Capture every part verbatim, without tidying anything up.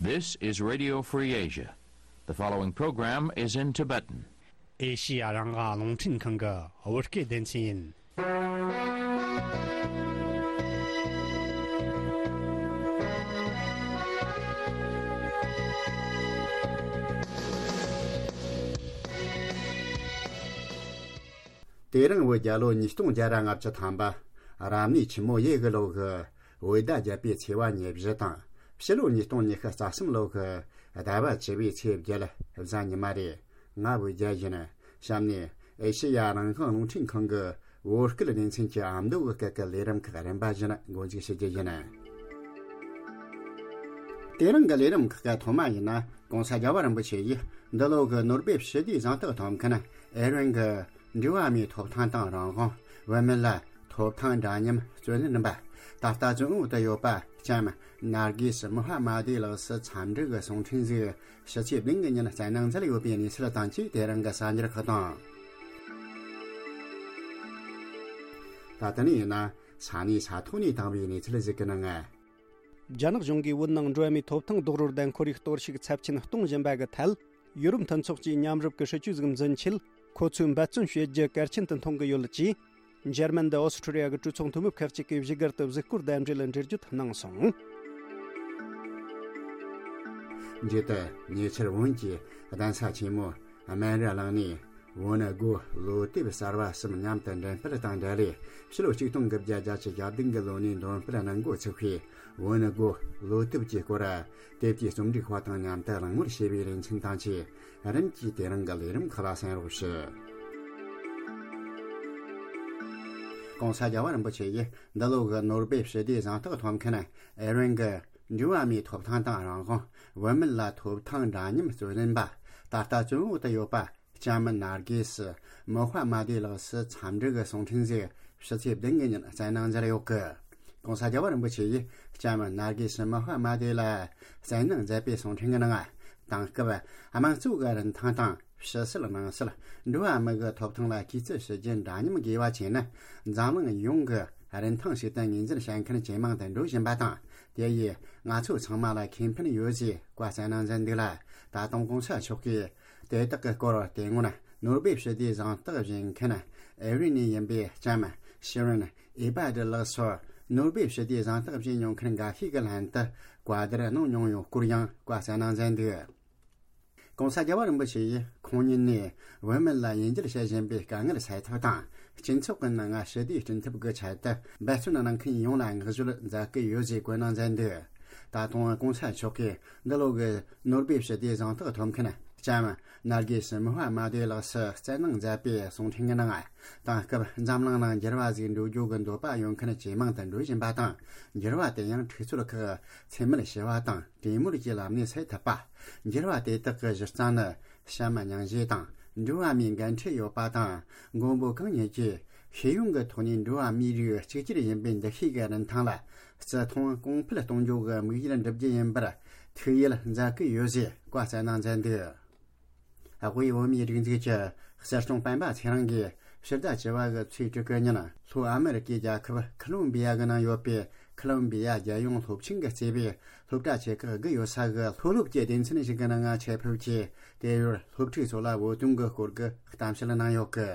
This is Radio Free Asia. The following program is in Tibetan. ཨེ་ཤི་ཡ་རང་དབང་རླུང་འཕྲིན་ཁང་གི་བོད་སྐད་སྡེ་ཚན་ཡིན། དེ་རིང་བོད་རྒྱལ་ལོ་ཉིས་སྟོང་བརྒྱ་ར་ལྔ་བཅུ་ཐམ་པ། རབ་གནས་ཆུ་མོ་ཡོས་གི་ལོ་གི་བོད་ཟླ་བརྒྱད་པའི་ཚེས་པ་ཉེར་བཞི་དང་། ཕྱི་ལོ་ཉིས་སྟོང་ཉི་ཤུ་རྩ་གསུམ་ལོ་གི་ཟླ་བ་བཅུ་པའི་ཚེས་བརྒྱད་གཟའ་ཉི་མ་རེད། ང་བོད་རྒྱལ་ཡིན། གཤམ་ནས་ཨེ་ཤེ་ཡ་རང་དབང་རླུང་འཕྲིན་ཁང་གི་བོད་སྐད་སྡེ་ཚན་གྱི་ཨ་མདོ་གི་སྐད་ཀྱི་ལས་རིམ་ཁག་རིམ་པ་བཞིན་འགོ་འཛུགས་བྱེད་རྒྱུ་ཡིན། དེ་རིང་གི་ལས་རིམ་ཁག་གི་ཐོག་མ་ཡིན་ན། ༸གོང་ས་རྒྱལ་བ་རིན་པོ་ཆེ་ཡིས་འདི་ལོ་གི་ནོ་སྦེལ་ཞི་བདེའི་གཟེངས་རྟགས་ཐོབ་མཁན་ཨེ་རན་གྱི་འགྲོ་བ་མིའི་ཐོབ་ཐང་དང་རང་དབང་། བུད་མེད་ལ་ཐོབ་ཐང་འདྲ་མཉམ་བརྩོན་ལེན་པ། ད་ལྟ་བཙོན་འོག་ཏུ་ཡོད་པ་ལྕམ་ནར་གི་སི་མོ་ཧ་མ་དེ་ལགས་སུ་འཚམས་འདྲི་གི་གསུང་འཕྲིན་ཞིག་ཕྱི་ཚེས་བདུན་གྱི་ཉིན་བསྩལ་གནང་མཛད་ཡོད་པའི་གནས་ཚུལ་དང་བཅས། དེ་རིང་གི་གསར་འགྱུར་ཁག་དང་། ད་ལྟ་ནས་ཡིན་ན་ས་གནས་ས་ཐོག་ནས་བཏང་བའི་གནས་ཚུལ་ཞིག་གི་ནང་། རྒྱ་ནག་གཞུང་གིས་བོད་ནང་འགྲོ་བ་མིའི་ཐོབ་ཐང་རྡོག་རོལ་དང་ཁོར་ཡུག་གཏོར་བཤིག་ཚབས་ཆེན་གཏོང་བཞིན་པ་གི་ཐད། ཡུ་རོབ་མཐུན་ཚོགས་ཀྱིས་མཉམ་རུབ་ཀྱི་སྲིད་ཇུས་ཤིག་འཛིན་ཆེད། ཁོ་ཚོས་འབད་བརྩོན་བྱེད་རྒྱུ་གལ་ཆེན་དུ་མཐོང་གི་ཡོད་ཅེས། འཇར་མན་དང་ཨོ་སི་ཁྲུ་ལི་ཡ་གི་གྲོས་ཚོགས་འཐུས་མི་ཁག་ཅིག་གིས་བཞུགས་སྒར་དུ་གཟིགས་སྐོར་དང་འབྲེལ་འགྲེལ་བརྗོད་གནང་སོང་། མཇུག་ཏུ་ཉེ་ཆར་བོད་ཀྱི་གདན་ས་ཆེན་མོ་སྨན་རི་གླིང་ནས། བོན་སྒོ་ལོ་དེབ་གསར་བ་གསུམ་མཉམ་དུ་འགྲེམས་སྤེལ་དང་འབྲེལ། ཕྱི་ལོ་ཆིག་སྟོང་དགུ་བརྒྱ་བརྒྱད་ཅུ་གྱ་བདུན་གྱི་ལོ་ནས་འདོན་སྤེལ་གནང་འགོ་ཚུགས་པའི་བོན་སྒོ་ལོ་དེབ་ཀྱི་སྐོར། དེབ་ཀྱི་རྩོམ་སྒྲིག་པ་དང་མཉམ་དུ་གླེང་མོལ་བྱས་པའི་ལེ་ཚན་དང་བཅས། རིམ་གྱིས་དེ་རིང་གི་ལས་རིམ་ཁག་ལ་གསན་རོགས་ཞུ། ༸གོང་ས་རྒྱལ་བ་རིན་པོ་ཆེ་ཡིས་འདི་ལོ་གི་ནོ་སྦེལ་ཞི་བདེའི་གཟེངས་རྟགས་ཐོབ་མཁན་ཨེ་རན་གྱི་འགྲོ་བ་མིའི་ཐོབ་ཐང་དང་རང་དབང་། བུད་མེད་ལ་ཐོབ་ཐང་འདྲ་མཉམ་བརྩོན་ལེན་པ། ད་ལྟ་བཙོན་འོག་ཏུ་ཡོད་པ། ལྕམ་ནར་གི་སི་མོ་ཧ་མ་དེ་ལགས་སུ་འཚམས་འདྲི་གི་གསུང་འཕྲིན་ཞིག་ཕྱི་ཚེས་བདུན་གྱི་ཉིན་བསྩལ་གནང་མཛད་ཡོད་གི། ༸གོང་ས་རྒྱལ་བ་རིན་པོ་ཆེ་ཡིས་ལྕམ་ནར་གི་སི་མོ་ཧ་མ་དེ་ལ་བསྩལ་གནང་མཛད་པའི་གསུང་འཕྲིན་གྱི་ནང་། དེང་སྐབས་དམངས་གཙོ་གི་རིན་ཐང་དང་ཕྱི་སྲིད་ནང་སྲིད། འགྲོ་བ་མི་གི་ཐོབ་ཐང་ལ་གུས་བརྩི་ཞུ་རྒྱུ་འདྲ་མཉམ་དགོས་པ་བྱས་ན། འཛམ་གླིང་ཡོངས་ཀྱི་རིན་ཐང་ཞིག་ཏུ་ངོས་འཛིན་བྱེད་མཁན་ཇེ་མང་དུ་འགྲོ་བཞིན་པ་དང་། དེ་ཡིས་ང་ཚོ་ཚང་མ་ལ་ཁེ་ཕན་ཡོད་ཅེས་བཀའ་གནང་མཛད་འདུག་ལ། ད་དུང་༸གོང་ས་མཆོག་གིས་དེ་དག་གི་སྐོར་དེ་སྔོན་ནོ་སྦེལ་ཞི་བདེའི་གཟེངས་རྟགས་བཞེས་མཁན་ཨེ་རི་ནས་ཡིན་པའི་ལྕམ་ཤི་རིན་ཨེ་བྷ་ཏི་ལགས་སུ་ནོ་སྦེལ་ཞི་བདེའི་གཟེངས་རྟགས་བཞེས་མྱོང་མཁན་འགའ་ཤས་ཀྱི་ལྷན་དུ་བཀའ་བསྡུར་གནང་མྱོང་ཡོད་སྐོར་ཡང་བཀའ་གནང་མཛད་འདུག། ༸གོང་ས་རྒྱལ་བ་རིན་པོ་ཆེ་ཡིས་ཁོང་ཉིད་ནས་བོད་མི་ལ་དབྱེ་འབྱེད་བྱེད་བཞིན་པའི་དཀའ་ངལ་སེལ་ཐབས་དང་། སྤྱི་ཚོགས་ཀྱི་ནང་ཞི་བདེ་སྐྲུན་ཐབས་ཀྱི་ཆེད་དུ་འབད་བརྩོན་གནང་མཁན་ཡོངས་ལ་བསྔགས་བརྗོད་མཛད་ཀྱི་ཡོད་ཅེས་བཀའ་གནང་མཛད་འདུག། ད་དུང་༸གོང་ས་མཆོག་གིས་འདི་ལོ་གི་ནོ་སྦེལ་ཞི་བདེའི་གཟེངས་རྟགས་ཐོབ་མཁན་ལྕམ་ནར་གི་སི་མོ་ཧ་མ་དེ་ལགས་སུ་བསྩལ་གནང་མཛད་པའི་གསུང་འཕྲིན་གྱི་ནང་། དེང་སྐབས་འཛམ་གླིང་ནང་འགྱུར་བ་ཟིག་འགྲོ་རྒྱུ་གི་འདོད་པ་ཡོད་མཁན་ཇེ་མང་དུ་འགྲོ་བཞིན་པ་དང་། འགྱུར་བ་དེ་ཡང་འཁྲུག་རྩོད་ཁག་འཚེ་མེད་ཞི་བ་དང་གྲོས་མོལ་གྱི་ལམ་ནས་སེལ་ཐུབ་པ། འགྱུར་བ་དེ་དག་གི་གཞི་རྩ་ནི་བྱམས་སྙིང་རྗེ་དང་འགྲོ་བ་མིའི་འགན་འཁྲི་ཡོད་པ་དང་། མགོན་པོ་གང་ཉིད་ཀྱིས་ཤེས་ཡོན་གྱི་ཐོག་ནས་འགྲོ་བ་མིའི་རིགས་གཅིག་གྱུར་ཡིན་པའི་འདུ་ཤེས་ཀྱི་རིན་ཐང་ལ་བརྩི་མཐོང་གོང་འཕེལ་གཏོང་རྒྱུ་གི་དམིགས་ཡུལ་འགྲུབ་རྒྱུ་ཡིན་པར་ཐུགས་ཡིད་མཛད་ཀྱི་ཡོད་ཅེས་བཀའ་གནང་མཛད་འདུག། དབུས་བོད་མིའི་སྒྲིག་འཛུགས་ཀྱི་སྲིད་སྐྱོང་སྤེན་པ་ཚེ་རིང་གིས་ཕྱི་ཟླ་བཅུ་པ་གི་ཚེས་དྲུག་གི་ཉིན་ལྷོ་ཨ་མེ་རི་ཀའི་རྒྱལ་ཁབ་ཁོ་ལོམ་བི་ཡ་གི་ནང་ཡོད་པའི་ཁོ་ལོམ་བི་ཡ་རྒྱལ་ཡོངས་སློབ་ཆེན་གྱིས་གཙོས་པའི་སློབ་གྲྭ་ཆེ་ཁག་བཞི་ཡོད་ས་གི་མཐོ་སློབ་ཀྱི་སྡེ་ཚན་ཞིག་གི་ནང་ཆེད་ཕེབས་ཀྱིས། དེ་ཡུལ་སློབ་ཕྲུག་ཚོ་ལ་བོད་དོན་གྱི་སྐོར་གྱི་གཏམ་བཤད་གནང་ཡོད་གི།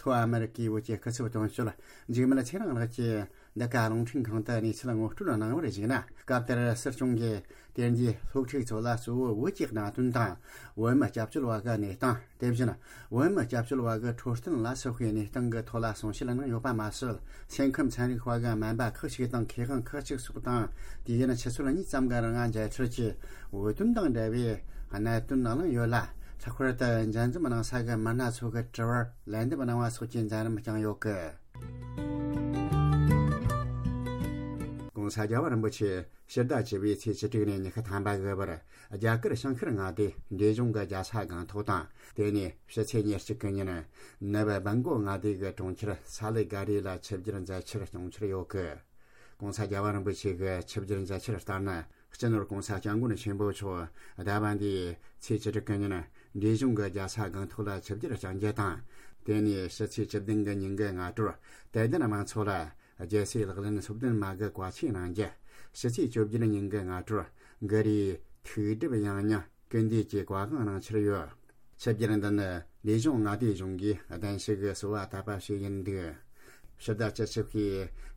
ལྷོ་ཨ་མེ་རི་ཀའི་བོད་ཀྱི་སྐུ་ཚབ་དོན་གཅོད་འཇིགས་མེད་ཚེ་རིང་ལགས་ཀྱིས་འདི་ག་རླུང་འཕྲིན་ཁང་དུ་གནས་ཚུལ་ངོ་སྤྲོད་གནང་བར་གཞིགས་ན། སྐབས་དེར་སྲིད་སྐྱོང་གིས་དེ་རྗེས་སློབ་ཕྲུག་ཚོ་ལ་གཙོ་བོ་བོད་ཀྱི་གནད་དོན་དང་། བོད་མི་སྐྱབས་བཅོལ་བ་གི་གནས་སྟངས། དེ་བཞིན་བོད་མི་སྐྱབས་བཅོལ་བ་གི་འཕྲོད་བསྟེན་ལ་སོགས་པའི་གནས་སྟངས་ཀྱི་ཐོག་ལ་གསུང་བཤད་གནང་ཡོད་པ་མ་ཟད། སེམས་ཁམས་ཚན་རིག་པ་གི་སྨན་པ་ཁག་ཅིག་དང་མཁས་དབང་ཁག་ཅིག་སོགས་དང་། དུས་ཡུན་ཆུ་ཚོད་གཉིས་ཙམ་གྱི་རིང་མཇལ་འཕྲད་ཀྱིས་བོད་དོན་དང་འབྲེལ་བའི་གནད་དོན་གླེང་ཡོད་ལ། ལྷག་པར་དུ་མཇལ་འཛོམས་གནང་ས་གི་མི་སྣ་ཚོ་གི་དྲི་བར་ལན་འདེབས་གནང་བ་སོགས་ཀྱི་མཛད་རིམ་བསྐྱངས་ཡོད་གི། ༸གོང་ས་རྒྱལ་བ་རིན་པོ་ཆེ་ཕྱི་ཟླ་བཅུ་པའི་ཚེས་བཅུ་དྲུག་ནས་ཉི་ཤུ་ཐམ་པ་གི་བར་རྒྱ་གར་བྱང་ཤར་མངའ་སྡེའི་འབྲས་ལྗོངས་ཀྱི་རྒྱལ་ས་སྒང་ཏོག་དང་། དེ་ནས་ཕྱི་ཚེས་ཉེར་གཅིག་གི་ཉིན་ནུབ་སྦི་གོ་མངའ་སྡེ་གི་གྲོང་ཁྱེར་ས་ལི་ག་རི་ལ་ཆིབས་བསྒྱུར་མཛད་འཆར་བྱུང་འཆར་ཡོད་གི། ༸གོང་ས་རྒྱལ་བ་རིན་པོ་ཆེ་གི་ཆིབས་བསྒྱུར་མཛད་འཆར་ལྟར་ན། སྤྱི་ནོར་༸གོང་ས་༸སྐྱབས་མགོན་ཆེན་པོ་མཆོག་ཟླ་བ་འདིའི་ཚེས་བཅུ་དྲུག་གི་ཉིན་འབྲས་ལྗོངས་ཀྱི་རྒྱལ་ས་སྒང་ཏོག་ལ་ཆིབས་བསྒྱུར་བསྐྱང་རྒྱུ་དང་། དེ་ནས་ཕྱི་ཚེས་བཅུ་བདུན་གི་ཉིན་གྱི་སྔ་དྲོར་དད་ལྡན་དམངས་ཚོགས་ལ་རྒྱལ་སྲས་ལག་ལེན་སོ་བདུན་མ་གི་བཀའ་ཆོས་གནང་རྒྱུ། ཕྱི་ཚེས་བཅོ་བརྒྱད་ཉིན་གྱི་སྔ་དྲོར་གྷི་རིའི་ ཐུགས་སྒྲུབ་ཡང་སྙིང་སྐུལ་འདེད་ཀྱི་བཀའ་དབང་གནང་འཆར་ཡོད། ཆིབས་བསྒྱུར་འདི་ནི་ལས་གཞུང་མངའ་སྡེ་གཞུང་གིས་གདན་ཞུ་གི་གསོལ་བ་བཏབ་པ་ཞིག་ཡིན་འདུག། ཕྱི་ཟླ་བཅུ་གཅིག་པའི་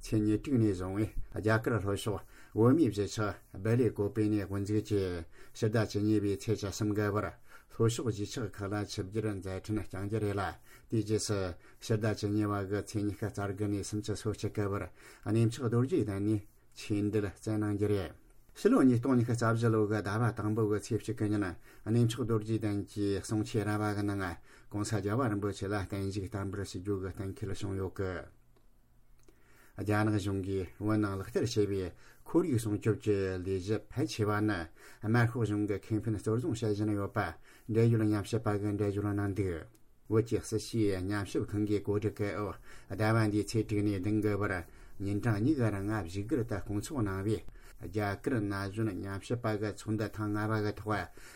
ཚེས་ཉེར་དྲུག་ནས་བཟུང་བའི་རྒྱ་གར་ལྷོ་ཕྱོགས་བོད་མིའི་གཞིས་ཆགས་སྦེལ་ཀོབ་པེ་ནས་དབུ་འཛུགས་ཀྱིས་ཕྱི་ཟླ་བཅུ་གཉིས་པའི་ཚེས་བཅུ་གསུམ་གི་བར་ལྷོ་ཕྱོགས་གཞིས་ཆགས་ཁག་ལ་ཆིབས་བསྒྱུར་མཛད་འཕྲིན་བསྐྱངས་རྒྱུ་རེད་ལ། དེའི་རྗེས་སུ་ཕྱི་ཟླ་བཅུ་གཉིས་པ་གི་ཚེས་ཉི་ཤུ་རྩ་དགུ་ནས་སུམ་ཅུ་སོ་གཅིག་གི་བར་གནས་མཆོག་རྡོ་རྗེ་གདན་ནས་ཆོས་འབྲེལ་སྩལ་གནང་རྒྱུ་རེད། ཕྱི་ལོ་ཉིས་སྟོང་ཉི་ཤུ་རྩ་བཞི་ལོ་གི་ཟླ་བ་དང་པོ་གི་ཚེས་གཅིག་གི་ཉིན། གནས་མཆོག་རྡོ་རྗེ་གདན་གྱི་གསུང་ཆོས་ར་བ་གི་ནང་༸གོང་ས་༸རྒྱལ་བ་རིན་པོ་ཆེ་ལ་བརྟན་བཞུགས་བསྟར་འབུལ་ཞུ་རྒྱུ་གི་གཏན་འཁེལ་བྱུང་ཡོད་གི། རྒྱ་ནག་གཞུང་གིས་བོད་ནང་ལག་བསྟར་བྱས་པའི་ཁོར་ཡུག་སྲུང་སྐྱོབ་ཀྱི་ལས་གཞི་ཕལ་ཆེ་བ་ནི་དམར་ཤོག་གཞུང་གི་ཁེ་ཕན་གཙོར་བཟུང་བྱེད་བཞིན་ཡོད་པ་འབྲེལ་ཡོད་ཉམས་ཞིབ་པ་གིས་འགྲེལ་བརྗོད་གནང་འདུག། བོད་ཀྱི་སྲིད་བྱུས་ཉམས་ཞིབ་ཁང་གི་གོ་སྒྲིག་གི་འོག་ཟླ་བ་འདིའི་ཚེས་དྲུག་ནས་བདུན་གི་བར་ཉིན་གྲངས་གཉིས་ཀྱི་རིང་བཞུགས་སྒར་དུ་བསྐོང་ཚོགས་གནང་བའི་རྒྱ་གར་ན་གཞོན་ཉམས་ཞིབ་པ་གི་ཚོགས་འདུ་ཐེངས་ལྔ་པ་གི་ཐོག་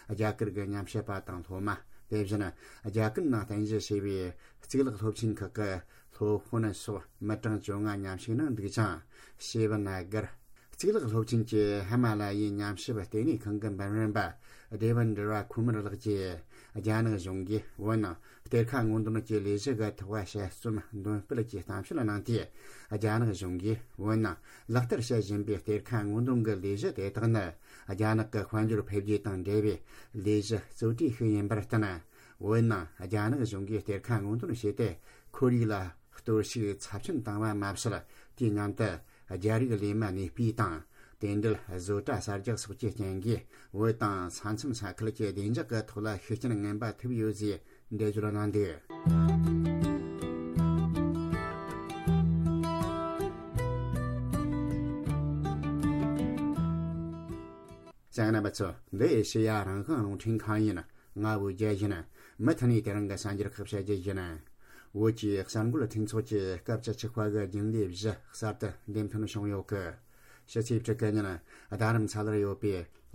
རྒྱ་གར་གྱི་ཉམས་ཞིབ་པ་དང་སློབ་མ། དེ་བཞིན་རྒྱ་གར་ནང་རྟེན་གཞི་བྱས་པའི་གཙུག་ལག་སློབ་ཆེན་ཁག་གི་སློབ་དཔོན་སོགས་མི་གྲངས་བཅོ་ལྔ་མཉམ་ཞུགས་གནང་འདུག་ཅིང་། ཞེ་བ་ན་གར་གཙུག་ལག་སློབ་ཆེན་གྱི་ཧི་མ་ལ་ཡའི་ཉམས་ཞིབ་ལྟེ་གནས་ཁང་གི་འབུམ་རམས་པ་དེ་བན་དྲི་བ་ཁུ་མར་ལགས་ཀྱིས། རྒྱ་ནག་གཞུང་གིས་བོད་ནང་གཏེར་ཁ་སྔོག་འདོན་གྱི་ལས་གཞི་གི་ཐོག་དཔྱད་རྩོམ་འདོན་སྤེལ་གྱི་གཏམ་བཤད་གནང་སྟེ། རྒྱ་ནག་གཞུང་གིས་བོད་ནང་ལག་བསྟར་བྱེད་བཞིན་པའི་གཏེར་ཁ་སྔོག་འདོན་གྱི་ལས་གཞི་དེ་དག་ནི་རྒྱ་ནག་གི་དཔལ་འབྱོར་འཕེལ་རྒྱས་དང་འབྲེལ་བའི་ལས་གཞི་གཙོ་གྲས་ཤིག་ཡིན་པར་བརྟེན། བོད་ནང་རྒྱ་ནག་གཞུང་གིས་གཏེར་ཁ་སྔོག་འདོན་བྱས་ཏེ་ཁོར་ཡུག་ལ་གཏོར་བཤིག་ཚབས་ཆེན་བཏང་བ་མ་ཟད། དེའི་མཉམ་དུ་རྒྱ་རིགས་ལས་མི་གནས་སྤོས་དང་། དེ་འབྲེལ་བཟོ་གྲྭ་གསར་རྒྱག་སོགས་ཀྱི་རྐྱེན་གྱིས་བོད་དང་ས་མཚམས་ས་ཁུལ་གྱི་བདེ་འཇགས་ཀྱི་ཐོག་ལ་ཤུགས་རྐྱེན་ངན་པ་ཐེབས་ཡོད་ཅེས་འགྲེལ་བརྗོད་གནང་འདུག། གསན་མཁན་རྣམ་པ་ཚོ། འདི་ཨེ་ཤེ་ཡ་རང་དབང་རླུང་འཕྲིན་ཁང་ཡིན། ང་བོད་རྒྱལ་ཡིན། མུ་མཐུད་ནས་དེ་རིང་གི་གསར་འགྱུར་ཁག་བཤད་རྒྱུ་ཡིན། བོད་ཀྱི་གསར་འགོད་མཐུན་ཚོགས་ཀྱི་སྐབས་བཅུ་གཅིག་པ་གི་རྒྱུན་ལས་བཞི་གསར་དུ་འདེམས་ཐོན་བྱུང་ཡོད་གི། ཕྱི་ཚེས་དྲུག་གི་ཉིན་རྡ་རམ་ས་ལར་ཡོད་པའི་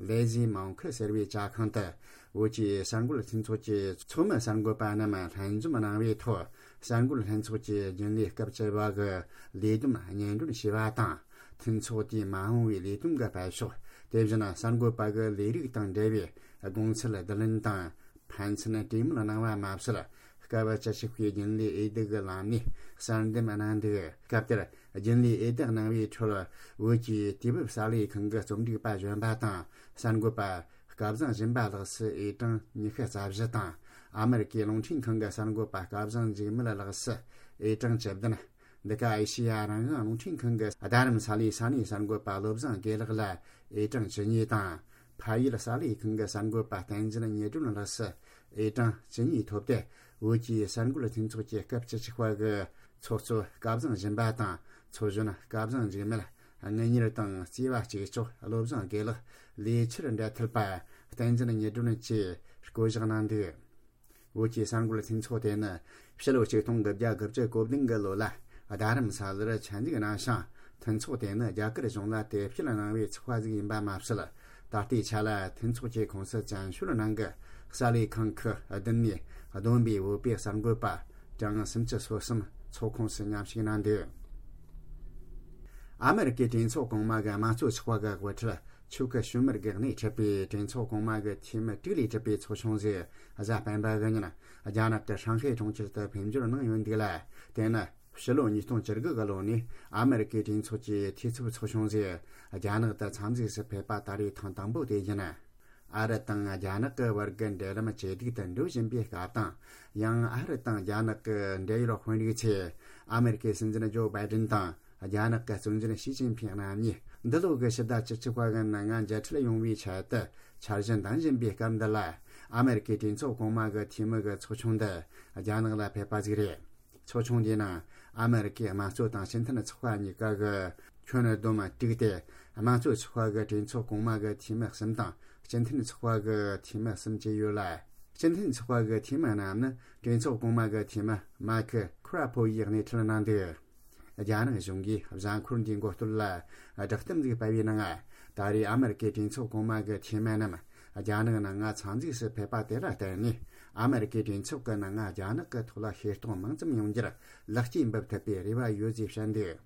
ལེ་ཟི་མོང་ཁི་ཟེར་བའི་ཇ་ཁང་དུ་བོད་ཀྱི་གསར་འགོད་མཐུན་ཚོགས་ཀྱི་ཚོགས་མི་གསར་འགོད་པ་རྣམས་ལྷན་འཛོམས་གནང་བའི་ཐོག་གསར་འགོད་ལྷན་ཚོགས་ཀྱི་རྒྱུན་ལས་སྐབས་བཅུ་པ་གི་ལས་བསྡོམས་སྙན་སྒྲོན་ཞུས་པ་དང་། མཐུན་ཚོགས་དེའི་མ་འོངས་པའི་ལས་དོན་གྱི་སྤེལ་ཕྱོགས། དེ་བཞིན་གསར་འགོད་པ་གི་ལས་རིགས་དང་འབྲེལ་བའི་དགོངས་ཚུལ་བསྡུ་ལེན་དང་ཕན་ཚུན་གྲོས་མོལ་གནང་བ་མ་ཟད། སྐབས་བཅུ་གཅིག་པའི་རྒྱུན་ལས་འོས་བསྡུ་གི་ལམ་ནས་གསར་འདེམས་གནང་འདུག། སྐབས་དེར་རྒྱུན་ལས་འོས་བསྡུ་གནང་བའི་ཁྲོད་བོད་ཀྱི་དུས་བབ་གསར་ལས་ཁང་གི་རྩོམ་སྒྲིག་པ་གཞོན་པ་དང་གསར་འགོད་པ་སྐལ་བཟང་སྦྱིན་པ་ལགས་སུ་འོས་གྲངས་ཉི་ཤུ་རྩ་བཞི་དང་། ཨ་མེ་རི་ཀའི་རླུང་འཕྲིན་ཁང་གི་གསར་འགོད་པ་སྐལ་བཟང་འཇིགས་མེད་ལགས་སུ་འོས་གྲངས་བཅུ་བདུན། འདི་ག་ཨེ་ཤེ་ཡ་རང་དབང་རླུང་འཕྲིན་ཁང་གི་རྡ་རམ་ས་ལའི་ས་གནས་གསར་འགོད་པ་བློ་བཟང་དགེ་ལེགས་ལ་འོས་གྲངས་བཅུ་གཉིས་དང་། ཕ་ཡུལ་གསར་ལས་ཁང་གི་གསར་འགོད་པ་བསྟན་འཛིན་ཉི་སྒྲོན་ལགས་སུ་འོས་གྲངས་བཅུ་གཉིས་ཐོབ་སྟེ། བོད་ཀྱི་གསར་འགོད་མཐུན་ཚོགས་ཀྱི་སྐབས་བཅུ་གཅིག་པ་གི་ཚོགས་གཙོ་སྐལ་བཟང་སྦྱིན་པ་དང་། ཚོགས་གཞོན་སྐལ་བཟང་འཇིགས་མེད། དངུལ་གཉེར་དང་རྩིས་པ་གཅིག་ལྕོགས་བློ་བཟང་དགེ་ལེགས། ལས་འཆར་འབྲེལ་མཐུད་པ་བསྟན་འཛིན་ཉི་སྒྲོན་བཅས་བསྐོ་གཞག་གནང་འདུག། བོད་ཀྱི་གསར་འགོད་མཐུན་ཚོགས་དེ་ནི་ཕྱི་ལོ་ཆིག་སྟོང་དགུ་བརྒྱ་དགུ་བཅུ་གོ་བདུན་གི་ལོ་ལ་རྡ་རམ་ས་ལར་ཆེད་འཛུགས་གནང་ཞིང་། མཐུན་ཚོགས་དེ་ནི་རྒྱ་གར་གཞུང་ལ་དེབ་སྐྱེལ་གནང་བའི་ཚོགས་པ་ཟིག་ཡིན་པ་མ་ཟད། ད་ལྟའི་ཆ་ལ་མཐུན་ཚོགས་ཀྱི་ཁོངས་སུ་བཙན་བྱོལ་ནང་གི་གསར་ལས་ཁང་ཁག་བདུན་ནས་བསྡོམས་པའི་བོད་པའི་གསར་འགོད་པ་གྲངས་སུམ་ཅུ་སོ་གསུམ་ཚོགས་ཁོངས་སུ་མཉམ་ཞུགས་གནང་འདུག། ཨ་མེ་རི་ཀའི་གྲོས་ཚོགས་གོང་མ་གི་དམངས་གཙོ་ཚོགས་པ་གི་དབུ་ཁྲིད་ཆུ་ཁི་ཤུ་མར་གྱིས་སྣེ་ཁྲིད་པའི་གྲོས་ཚོགས་གོང་མ་གི་འཐུས་མི་དྲུག་ལས་གྲུབ་པའི་ཚོགས་ཆུང་ཟིག་གཟའ་སྤེན་པ་གི་ཉིན་རྒྱ་ནག་གི་ཧྲང་ཧའེ་གྲོང་ཁྱེར་དུ་ཕེབས་འབྱོར་གནང་ཡོད་འདུག་ལ། དེ་ནི་ཕྱི་ལོ་ཉིས་སྟོང་བཅུ་དགུ་གི་ལོ་ནས་ཨ་མེ་རི་ཀའི་གྲོས་ཚོགས་ཀྱི་འཐུས་ཚབ་ཚོགས་ཆུང་ཟིག་རྒྱ་ནག་ཏུ་འཚམས་གཟིགས་སུ་ཕེབས་པ་ད་རེས་ཐེངས་དང་པོ་དེ་ཡིན། ཨ་རི་དང་རྒྱ་ནག་གི་བར་གྱི་འབྲེལ་ལམ་ཇེ་སྡུག་ཏུ་འགྲོ་བཞིན་པའི་སྐབས་དང་། ཡང་ཨ་རི་དང་རྒྱ་ནག་གི་འབྲེལ་ཡོད་དཔོན་རིགས་ཚོས་ཨ་མེ་རི་ཀའི་སྲིད་འཛིན་ཇོ་བྷའི་ཌེན་དང་། རྒྱ་ནག་གི་གཙོ་འཛིན་ཞི་ཅིན་ཕིང་རྣམ་གཉིས་འདི་ལོ་གི་ཕྱི་ཟླ་བཅུ་གཅིག་པ་གི་ནང་ང་མཇལ་འཕྲད་ཡོང་བའི་ཆེད་དུ་འཆར་གཞི་འདིང་བཞིན་པའི་སྐབས་འདི་ལ། ཨ་མེ་རི་ཀའི་གྲོས་ཚོགས་གོང་མ་གི་འཐུས་མི་གི་ཚོགས་ཆུང་འདི་རྒྱ་ནག་ལ་ཕེབས་པ་ཟིག་རེད། ཚོགས་ཆུང་འདིའི་ནང་ཨ་མེ་རི་ཀའི་དམངས་གཙོ་དང་སྤྱི་མཐུན་ཚོགས་པ་གཉིས་ཀ་གི་ཁྱོན་བསྡོམས་དྲུག་སྟེ། དམངས་གཙོ་ཚོགས་པ་གི་གྲོས་ཚོགས་གོང་མ་གི་འཐུས་མི་གསུམ་དང་སྤྱི་མཐུན་ཚོགས་པ་གི་འཐུས་མི་གསུམ་བཅས་ཡོད་ལ། སྤྱི་མཐུན་ཚོགས་པ་གི་འཐུས་མི་རྣམས་ནི་གྲོས་ཚོགས་གོང་མ་གི་འཐུས་མི་མཱ་ཁི་ཁུ་ར་ཕོ་ཡིས་སྣེ་ཁྲིད་གནང་འདུག། རྒྱ་ནག་གཞུང་གིས་གཟའ་འཁོར་འདིའི་འགོ་སྟོད་ལ་བསྒྲགས་གཏམ་ཞིག་སྤེལ་བའི་ནང་། ད་རེས་ཨ་མེ་རི་ཀའི་གྲོས་ཚོགས་གོང་མ་གི་འཐུས་མི་རྣམས་རྒྱ་ནག་ནང་ང་འཚམས་གཟིགས་སུ་ཕེབས་པ་དེ་ལ་བརྟེན་ནས། ཨ་མེ་རི་ཀའི་གྲོས་ཚོགས་ཀྱི་ནང་ང་རྒྱ་ནག་གི་ཐོག་ལ་ཤེས་རྟོགས་མང་ཙམ་ཡོང་རྒྱུར་ལེགས་སྐྱེས་འབུལ་ཐུབ་པའི་རེ་བ་ཡོད་ཅེས་བཤད་འདུག།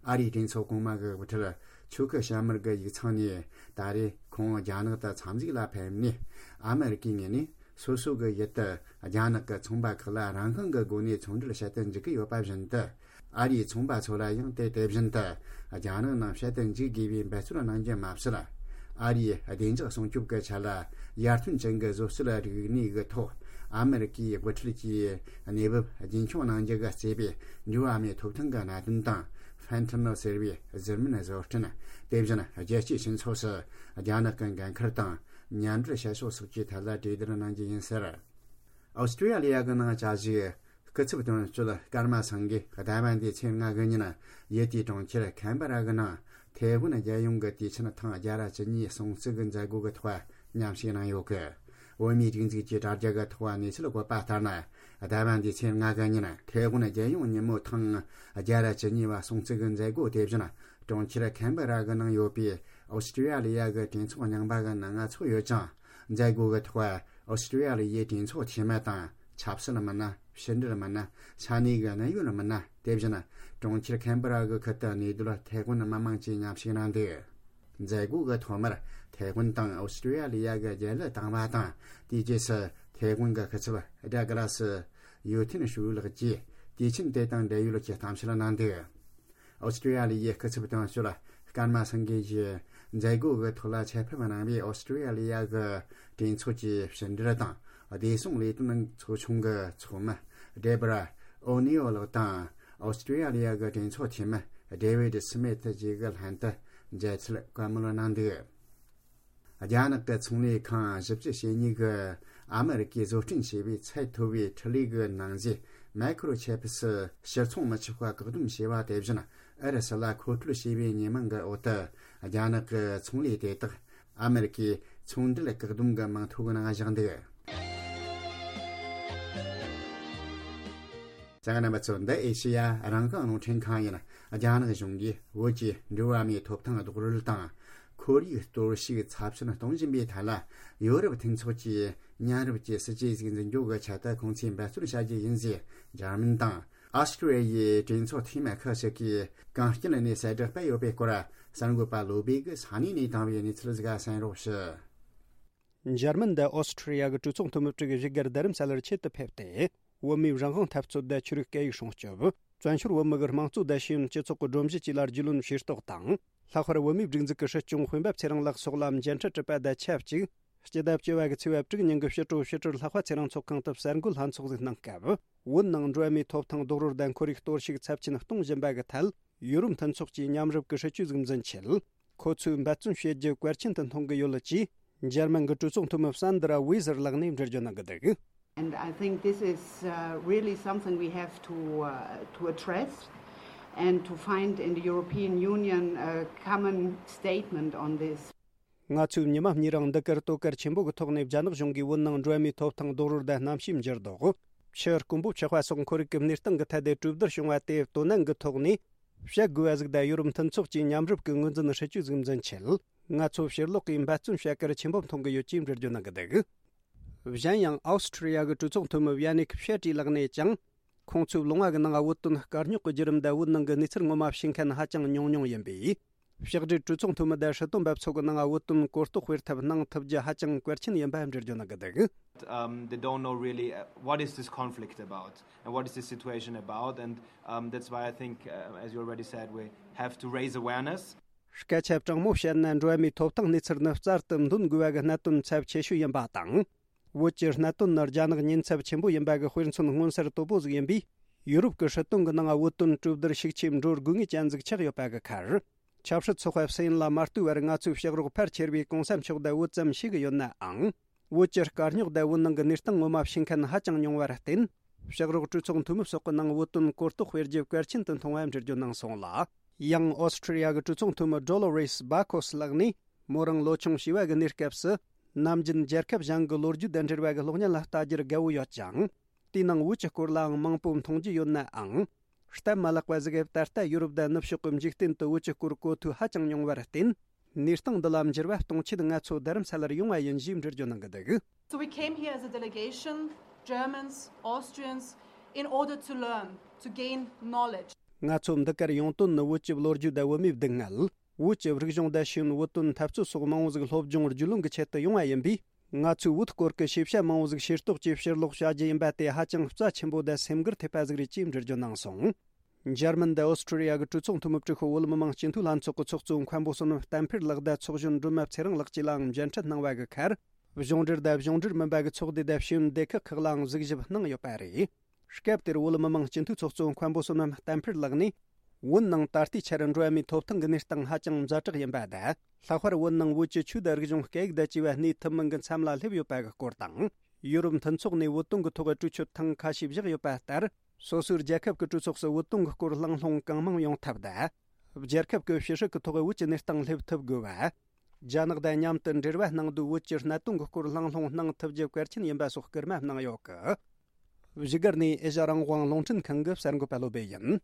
ཨ་རིའི་གྲོས་ཚོགས་གོང་མ་གི་དབུ་ཁྲིད་ཆོ་ཁི་ཤ་མུར་གི་ཡིག་ཚང་ནས། ད་རེས་ཁོང་རྒྱ་ནག་ཏུ་འཚམས་གཟིགས་ལ་ཕེབས་ནས། ཨ་མེ་རི་ཀའི་ངོས་ནས་སོ་སོ་གི་ཡུལ་དུ་རྒྱ་ནག་གི་ཚོང་པ་ཁག་ལ་རང་དབང་གི་སྒོ་ནས་ཚོང་འབྲེལ་བྱེད་དུ་འཇུག་གི་ཡོད་པ་བཞིན་དུ། ཨ་རིའི་ཚོང་པ་ཚོ་ལ་ཡང་དེ་དེ་བཞིན་དུ་རྒྱ་ནག་ནང་བྱེད་དུ་འཇུག་དགོས་པའི་འབད་བརྩོན་གནང་རྒྱུ་མ་ཟད། ཨ་རིའི་བདེ་འཇགས་སྲུང་སྐྱོབ་ཀྱི་ཆེད་ལ་ཡར་ཐོན་ཅན་གྱི་བཟོ་རྩལ་རིག་གནས་ཀྱི་ཐོག་ཨ་མེ་རི་ཀའི་དབུ་ཁྲིད་ཀྱིས་གནས་བབ་རྒྱུན་འཁྱོངས་གནང་རྒྱུ་གི་རྩིས་པའི་འགྲོ་བ་མིའི་ཐོབ་ཐང་གི་གནད་དོན་དང་། ཕན་ཐི་ནིལ་ཟེར་བའི་གཟུར་སྨན་བཟོ་སྐྲུན། དེ་བཞིན་རྒྱལ་སྤྱིའི་སྤྱི་ཚོགས་སུ་རྒྱ་ནག་གི་འགན་ཁུར་དང་མཉམ་འབྲེལ་བྱ་ཕྱོགས་སོགས་ཀྱི་ཐད་ལ་གྲོས་བསྡུར་གནང་རྒྱུ་ཡིན་ཟེར། ཨོ་སི་ཀྲི་ཡ་ལི་ཡ་གི་ནང་བཅའ་བཞུགས་སྐུ་ཚབ་དོན་གཅོད་ཀརྨ་སངས་རྒྱས་ཟླ་བ་འདིའི་ཚེས་ལྔ་གི་ཉིན་ཡུལ་དེའི་གྲོང་ཁྱེར་ཁན་བྷ་ར་གི་ནང་ཐའེ་ཝན་རྒྱལ་ཡོངས་ཀྱི་དུས་ཆེན་ཐེངས་བརྒྱ་ར་བཅུ་གཉིས་སྲུང་བརྩི་གི་མཛད་སྒོ་གི་ཐོག་མཉམ་ཞུགས་གནང་ཡོད་གི། བོད་མིའི་སྒྲིག་འཛུགས་ཀྱི་དྲ་རྒྱ་གི་ཐོག་གནས་ཚུལ་བཀོད་པ་ལྟར་ན། ཟླ་བ་འདིའི་ཚེས་ལྔ་གི་ཉིན་ཐའེ་ཝན་རྒྱལ་ཡོངས་ཉིན་མོ་ཐེངས་བརྒྱ་ར་བཅུ་གཉིས་པ་སྲུང་བརྩི་གི་མཛད་སྒོ་དེ་བཞིན་གྲོང་ཁྱེར་ཁན་བྷ་ར་གི་ནང་ཡོད་པའི་ཨོ་སི་ཀྲི་ཡ་ལི་ཡ་གི་གྲོས་ཚོགས་རྙིང་པ་གི་ནང་ཚོགས་ཡོད་ཅིང་། མཛད་སྒོ་གི་ཐོག་ཨོ་སི་ཀྲི་ཡ་ལི་ཡའི་གྲོས་ཚོགས་འཐུས་མི་དང་ཆབ་སྲིད་མི་སྣ། ཕྱི་འབྲེལ་མི་སྣ། ས་གནས་ཀྱི་གནད་ཡོད་མི་སྣ། དེ་བཞིན་གྲོང་ཁྱེར་ཁན་བྷ་ར་གི་ཁུལ་དུ་གནས་སྡོད་ཐའེ་ཝན་མི་མང་བཅས་མཉམ་ཞུགས་གནང་འདུག། མཛད་སྒོ་གི་ཐོག་མར་ཐའེ་ཝན་དང་ཨོ་སི་ཀྲི་ཡ་ལི་ཡ་གི་རྒྱལ་གླུ་བཏང་བ་དང་། དེའི་རྗེས་སུ་ཐའེ་ཝན་གྱི་སྐུ་ཚབ་ཌག་ལ་སི་ཡུ་ཐིན་ཧྲུའུ་ལགས་ཀྱིས་དུས་ཆེན་དེ་དང་འབྲེལ་ཡོད་ཀྱི་གཏམ་བཤད་གནང་འདུག། ཨོ་སི་ཀྲི་ཡ་ལི་ཡའི་སྐུ་ཚབ་དོན་གཅོད་ཀརྨ་སངས་རྒྱས་ཀྱིས་མཛད་སྒོ་གི་ཐོག་ལ་ཆེད་ཕེབས་གནང་བའི་ཨོ་སི་ཀྲི་ཡ་ལི་ཡ་གི་གྲོས་ཚོགས་ཀྱི་ཕྱི་འབྲེལ་དང་བདེ་སྲུང་ལས་དོན་ཚོགས་ཆུང་གི་ཚོགས་མི་ཌེ་བྷ་ར་ཨོ་ནི་ཨོ་ལགས་དང་། ཨོ་སི་ཀྲི་ཡ་ལི་ཡ་གི་གྲོས་ཚོགས་འཐུས་མི་ཌེ་ཝིད་སི་མིད་བཅས་ཀྱི་ལྷན་དུ་མཇལ་འཕྲད་བཀའ་མོལ་གནང་འདུག། རྒྱ་ནག་གི་ཚོང་ལས་ཁང་བཞི་བཅུ་ཞེ་གཉིས་ཀྱིས་ཨ་མེ་རི་ཀས་བཟོ་སྐྲུན་བྱས་པའི་ཚད་མཐོ་བའི་འཕྲུལ་ལས་ཀྱི་ནང་གཟུགས་མའི་ཁོ་རོ་ཆེབ་སི་ཕྱིར་ཚོང་མི་ཆོག་པ་བཀག་སྡོམ་བྱས་པ་དེ་བཞིན་ཨུ་རུ་སུ་ལ་མཁོ་སྤྲོད་བྱས་པའི་ཉེས་མིང་གི་འོག་ཏུ། རྒྱ་ནག་གི་ཚོང་ལས་དེ་དག་ཨ་མེ་རི་ཀའི་ཚོང་འབྲེལ་བཀག་སྡོམ་གྱི་མིང་ཐོ་གི་ནང་བཞག་འདུག། རྒྱ་གར་རྣམ་པ་ཚོ། འདི་ཨེ་ཤེ་ཡ་རང་དབང་རླུང་འཕྲིན་ཁང་ཡིན། རྒྱ་ནག་གཞུང་གིས་བོད་ཀྱི་འགྲོ་བ་མིའི་ཐོབ་ཐང་རྡོག་རོལ་དང་། ཁོར་ཡུག་གཏོར་བཤིག་ཚབས་ཆེན་གཏོང་བཞིན་པའི་ཐད་ལ། ཡོ་རོབ་མཐུན་ཚོགས་ཀྱིས་མཉམ་རུབ་ཀྱི་སྲིད་ཇུས་ཟིག་འཛིན་སྐྱོང་གི་ཆེད་དུ་ཁོང་ཚོས་འབད་བརྩོན་བྱ་རྒྱུ་ཡིན་ཞེས་འཇར་མན་དང་། ཨོ་སི་ཀྲི་ཡའི་གྲོས་ཚོགས་འཐུས་མི་ཁག་ཅིག་གིས་གངས་སྐྱིད་ནས་གསལ་བསྒྲགས་སྤེལ་ཡོད་པའི་སྐོར། གསར་འགོད་པ་བློ་བྷེ་གིས་ས་གནས་ནས་བཏང་བའི་གནས་ཚུལ་ཟིག་གསན་རོགས་ཞུ། འཇར་མན་དུ་ཨོ་སི་ཀྲི་ཡ་གི་གྲོས་ཚོགས་འཐུས་མི་དྲུག་བཞུགས་སྒར་རྡ་རམ་ས་ལར་ཆེད་དུ་ཕེབས་ཏེ། བོད་མིའི་རང་དབང་འཐབ་རྩོད་དང་ཆོས་རིག་སྐད་ཡིག་སྲུང་སྐྱོབ། བཙན་བྱོལ་བོད་མི་གི་དམངས་གཙོ་དང་ཤེས་ཡོན་སྤྱི་ཚོགས་ཀྱི་སྒྲོམ་གཞི་བཅས་ལ་རྒྱུས་ལོན་ཤེས་རྟོགས་དང་། ལྷག་པར་བོད་མིའི་སྒྲིག་འཛུགས་ཀྱི་སྲིད་སྐྱོང་སྤེན་པ་ཚེ་རིང་ལགས་སོགས་ལ་མཇལ་འཕྲད་གྲུབ་པ་དང་ཆབས་ཅིག་སྤྱི་ཟླ་བཅུ་བ་གི་ཚེས་པ་དྲུག་ཉིན་གྱི་ཕྱི་དྲོ་ཕྱི་དྲིལ་ལྷག་པ་ཚེ་རིང་ཚོགས་ཁང་དུ་གསར་འགོད་ལྷན་ཚོགས་ཟིག་གནང་སྐབས། བོད་ནང་འགྲོ་བ་མིའི་ཐོབ་ཐང་རྡོག་རོལ་དང་ཁོར་ཡུག་གཏོར་བཤིག་ཚབས་ཆེན་གཏོང་བཞིན་པ་གི་ཐད། ཡོ་རོབ་མཐུན་ཚོགས་ཀྱིས་མཉམ་རུབ་ཀྱི་སྲིད་ཇུས་ཟིག་འཛིན་ཆེད། ཁོ་ཚོས་འབད་བརྩོན་བྱེད་རྒྱུ་གལ་ཆེན་དུ་མཐོང་གི་ཡོད་ཅེས། འཇར་མན་གྱི་གྲོས་ཚོགས་འཐུས་མི་སན་དྲ་ཝེ་ཟེར་ལགས་ནས་འགྲེལ་བརྗོད་གནང་གི་འདུག། And I think this is uh, really something we have to, uh, to address and to find in the European Union a common statement on this. ང་ཚོས་ཉི་མ་གཉིས་རིང་འདི་གར་དོ་གལ་ཆེན་པོ་གི་ཐོག་ནས་རྒྱ་ནག་གཞུང་གིས་བོད་ནང་འགྲོ་བ་མིའི་ཐོབ་ཐང་རྡོག་རོལ་དང་གནམ་གཤིས་འགྱུར་ལྡོག་ཆུ་དཀོན་པོ་ཆགས་པ་སོགས་ཁོར་ཡུག་གི་གནས་སྟངས་ཀྱི་ཐད་དུ་གྲོས་བསྡུར་བྱུང་བ་དེ་དོ་ནན་གྱི་ཐོག་ནས་བཤད་དགོས་པ་ཟིག་དང་ཡོ་རོབ་མཐུན་ཚོགས་ཀྱིས་མཉམ་རུབ་ཀྱི་ངོས་འཛིན་སྲིད་ཇུས་ཟིག་འཛིན་ཆེད། ང་ཚོ་ཕྱིར་ལོག་གིས་འབད་བརྩོན་བྱ་གལ་ཆེན་པོ་མཐོང་གི་ཡོད་ཅེས་འགྲེལ་བརྗོད་གནང་གི་འདུག། གཞན་ཡང་ཨོ་སི་ཁྲི་ཡ་གི་གྲོས་ཚོགས་འཐུས་མི་ཝི་ཡ་ནིག་ཕྱེ་ཀྲི་ལགས་ནས་ཀྱང་། ཁོང་ཚོའི་ལུང་བ་གི་ནང་བོད་དོན་དཀའ་རྙོག་གི་བརྒྱུད་རིམ་དང་བོད་ནང་གི་གནས་ཚུལ་ངོ་མ་ཤེས་མཁན་ཧ་ཅང་ཉུང་ཉུང་ཡིན་པས། ཕྱག་སྦྲེལ་གྲོས་ཚོགས་འཐུས་མི་དང་སྲིད་དོན་པ་ཚོ་གི་ནང་བོད་དོན་གོ་རྟོགས་སྤེལ་ཐབས་གནང་ཐུབ་རྒྱུ་ཧ་ཅང་གལ་ཆེན་ཡིན་པ་འགྲེལ་བརྗོད་གནང་གི་འདུག། Um, they don't know really uh, what is this conflict about and what is the situation about, and um, that's why I think, uh, as you already said, we have to raise awareness. སྐད་ཆ་དྲང་མོ་བཤད་ན་འགྲོ་བ་མིའི་ཐོབ་ཐང་གནས་ཚུལ་ནི་བསྩལ་དུ་འདོན་དགོས་པ་གི་གནད་དོན་ཚབས་ཆེ་ཤོས་ཡིན་པ་དང་། བོད་ཀྱི་གནད་དོན་ནི་རྒྱ་ནག་ཉེན་ཚབས་ཆེན་པོ་ཡིན་པ་གི་དཔེ་མཚོན་མངོན་གསལ་དོད་པོ་ཟིག་ཡིན་པས། ཡུ་རོབ་ཀྱི་སྲིད་དོན་གྱི་ནང་བོད་དོན་གྲོས་བསྡུར་ཤུགས་ཆེ་འགྲོ་དགོས་ངེས་ཅན་ཟིག་ཆགས་ཡོད་པ་གི་ཁར། ཆབ་སྲིད་ཚོགས་པ་སུ་ཡིན་ལ་མ་ལྟོས་པར་ང་ཚོའི་ཕྱག་རོགས་ཕལ་ཆེར་བའི་གོང་ས་མཆོག་དང་བོད་ཙམ་ཤེས་ཀྱི་ཡོད་ནའང་། བོད་ཀྱི་དཀའ་རྙོག་དང་བོད་ནང་གི་གནས་སྟངས་ངོ་མ་ཤེས་མཁན་ཧ་ཅང་ཉུང་བར་བརྟེན། ཕྱག་རོགས་གྲོས་ཚོགས་འཐུས་མི་སོགས་ཀྱི་ནང་བོད་དོན་གོ་རྟོགས་སྤེལ་རྒྱུ་གལ་ཆེན་དུ་མཐོང་བ་འགྲེལ་བརྗོད་གནང་སོང་ལ། ཡང་ཨོ་སི་ཁྲི་ཡ་གི་གྲོས་ཚོགས་འཐུས་མི་ཌོ་ལོ་རེས་བྷ་ཁོས་ལགས་ནས། མོ་རང་ལོ་ཆུང་བྱིས་པ་གི་གནས་སྐབས་སུ། ནམ་རྒྱུན་རྒྱལ་ཁབ་གཞན་གྱི་ལོ་རྒྱུས་དང་འབྲེལ་བ་གི་གློག་བརྙན་ལ་ལྟ་རྒྱུར་དགའ་བོ་ཡོད་ཅིང་། དེའི་ནང་བོད་ཀྱི་སྐོར་ལའང་མང་པོ་མཐོང་རྒྱུ་ཡོད་ནའང་། སྟབས་མ་ལེགས་པ་ཟིག་གིས་ད་ལྟ་ཡུ་རོབ་དང་ནུབ་ཕྱོགས་ཀྱི་འཇིག་རྟེན་དུ་བོད་ཀྱི་སྐོར་གོ་ཐོས་ཧ་ཅང་ཉུང་བར་བརྟེན། གནས་སྟངས་འདི་ལ་འགྱུར་བ་གཏོང་ཆེད་ང་ཚོ་རྡ་རམ་ས་ལར་ཡོང་བ་ཡིན་ཞེས་འགྲེལ་བརྗོད་གནང་གི་འདུག། So we came here as a delegation, Germans, Austrians, in order to learn, to gain knowledge. ང་ཚོ་འདི་གར་ཡོང་དོན་ནི་བོད་ཀྱི་ལོ་རྒྱུས་དང་བོད་མིའི་སྡུག་བསྔལ། བོད་ཀྱི་རིག་གཞུང་དང་ཤེས་ཡོན། བོད་དོན་འཐབ་རྩོད་སོགས་མང་བོ་ཟིག་སློབ་སྦྱོང་བརྒྱུད་ལམ་གྱི་ཆེད་དུ་ཡོང་བ་ཡིན་པས། ང་ཚོས་བོད་སྐོར་གྱི་ཤེས་བྱ་མང་བོ་ཟིག་ཤེས་རྟོགས་ཀྱིས་ཕྱིར་ལོག་བྱ་རྒྱུ་ཡིན་པ་དེ་ཧ་ཅང་རྩ་ཆེན་པོ་དང་སེམས་འགུལ་ཐེབས་པ་ཟིག་རེད་ཅེས་འགྲེལ་བརྗོད་གནང་སོང་། འཇར་མན་དང་ཨོ་སི་ཁྲུ་ལི་ཡ་གི་གྲོས་ཚོགས་འཐུས་མི་སྤྲུལ་སྐུ་བོད་མི་མང་སྤྱི་འཐུས་ལྷན་ཚོགས་ཀྱི་ཚོགས་གཙོ་མཁན་པོ་བསོད་ནམས་བསྟན་འཕེལ་ལགས་དང་ཚོགས་གཞོན་སྒྲོལ་མ་ཚེ་རིང་ལགས་བཅས་ལའང་མཇལ་འཕྲད་གནང་བ་གི་ཁར། གཞུང་འབྲེལ་དང་གཞུང་འབྲེལ་མིན་པ་གི་ཚོགས་སྡེ་དང་ཤེས་ཡོན་སྡེ་ཁག་ཁག་ལའང་གཟིགས་ཞིབ་གནང་ཡོད་པ་རེད། སྐབས་དེར་བོད་མི་མང་སྤྱི་འཐུས་ཚོགས་གཙོ་མཁན་པོ་བསོད་ནམས་བསྟན་འཕེལ་ལགས་ནས། བོད་ནང་ད་ལྟའི་ཆར་འགྲོ་བ་མིའི་ཐོབ་ཐང་གི་གནས་སྟངས་ཧ་ཅང་ཛ་དྲག་ཡིན་པ་དང་། ལྷག་པར་བོད་ནང་བོད་ཀྱི་ཆོས་དང་རིག་གཞུང་སྐད་ཡིག་དང་བཅས་པ་གནས་ཐུབ་མིན་གྱི་མཚམས་ལ་སླེབས་ཡོད་པ་གི་སྐོར་དང་། ཡུ་རོབ་མཐུན་ཚོགས་ནས་བོད་དོན་གྱི་ཐོག་གི་གྲོས་ཆོད་ཐེངས་ཁ་ཤས་བཞག་ཡོད་པ་ལྟར། སོ་སོའི་རྒྱལ་ཁབ་ཀྱི་གྲོས་ཚོགས་སུ་བོད་དོན་གྱི་སྐོར་གླེང་སློང་གང་མང་ཡོང་ཐབས་དང་། རྒྱལ་ཁབ་ཀྱི་ཕྱི་སྲིད་ཀྱི་ཐོག་བོད་ཀྱི་གནས་སྟངས་སླེབས་ཐུབ་དགོས་པ། རྒྱ་ནག་དང་མཉམ་དུ་འབྲེལ་བ་གནང་དུས་བོད་ཀྱི་གནད་དོན་གྱི་སྐོར་གླེང་སློང་གནང་ཐུབ་རྒྱུ་གལ་ཆེན་ཡིན་པ་སོགས་སྐུལ་མ་གནང་ཡོད་གི། བཞུགས་སྒར་ནས་ཨེ་ཤ་རང་དབང་རླུང་འཕྲིན་ཁང་གི་གསར་འགོད་པ་བློ་བྷེ་ཡིན།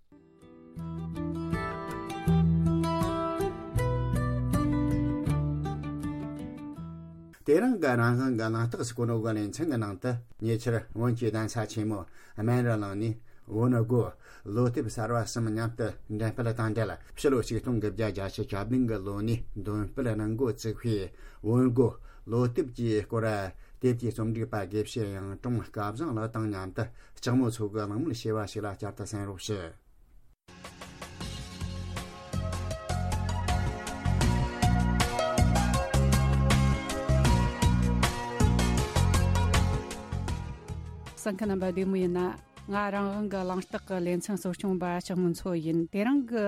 དེ་རིང་གི་རང་དབང་གི་གླེང་སྟེགས་སུ་གོ་ནོ་གི་ལེ་ཚན་གྱི་ནང་དུ། ཉེ་ཆར་བོད་ཀྱི་གདན་ས་ཆེན་མོ་སྨན་རི་གླིང་ནས་བོན་སྒོ་ལོ་དེབ་གསར་བ་གསུམ་མཉམ་དུ་འགྲེམས་སྤེལ་དང་འབྲེལ། ཕྱི་ལོ་ཆིག་སྟོང་དགུ་བརྒྱ་བརྒྱད་ཅུ་གྱ་བདུན་གི་ལོ་ནས་འདོན་སྤེལ་གནང་འགོ་བཙུགས་པའི་བོན་སྒོ་ལོ་དེབ་ཀྱི་སྐོར། དེབ་ཀྱི་རྩོམ་སྒྲིག་པ་དགེ་བཤེས་གཡུང་དྲུང་སྐལ་བཟང་ལགས་དང་མཉམ་དུ་ལྕགས་མོ་མཚོ་གི་གླེང་མོལ་བྱས་པ་ཞིག་ལ་བསྐྱར་དུ་གསན་རོགས་ཞུ། གསན་མཁན་རྣམ་པ་བདེ་མོ་ཡིན་ན། ང་རང་དབང་གི་གླེང་སྟེགས་ཀྱི་ལེ་ཚན་གཙོ་སྐྱོང་པ་ལྕགས་མོ་མཚོ་ཡིན། དེ་རིང་གི་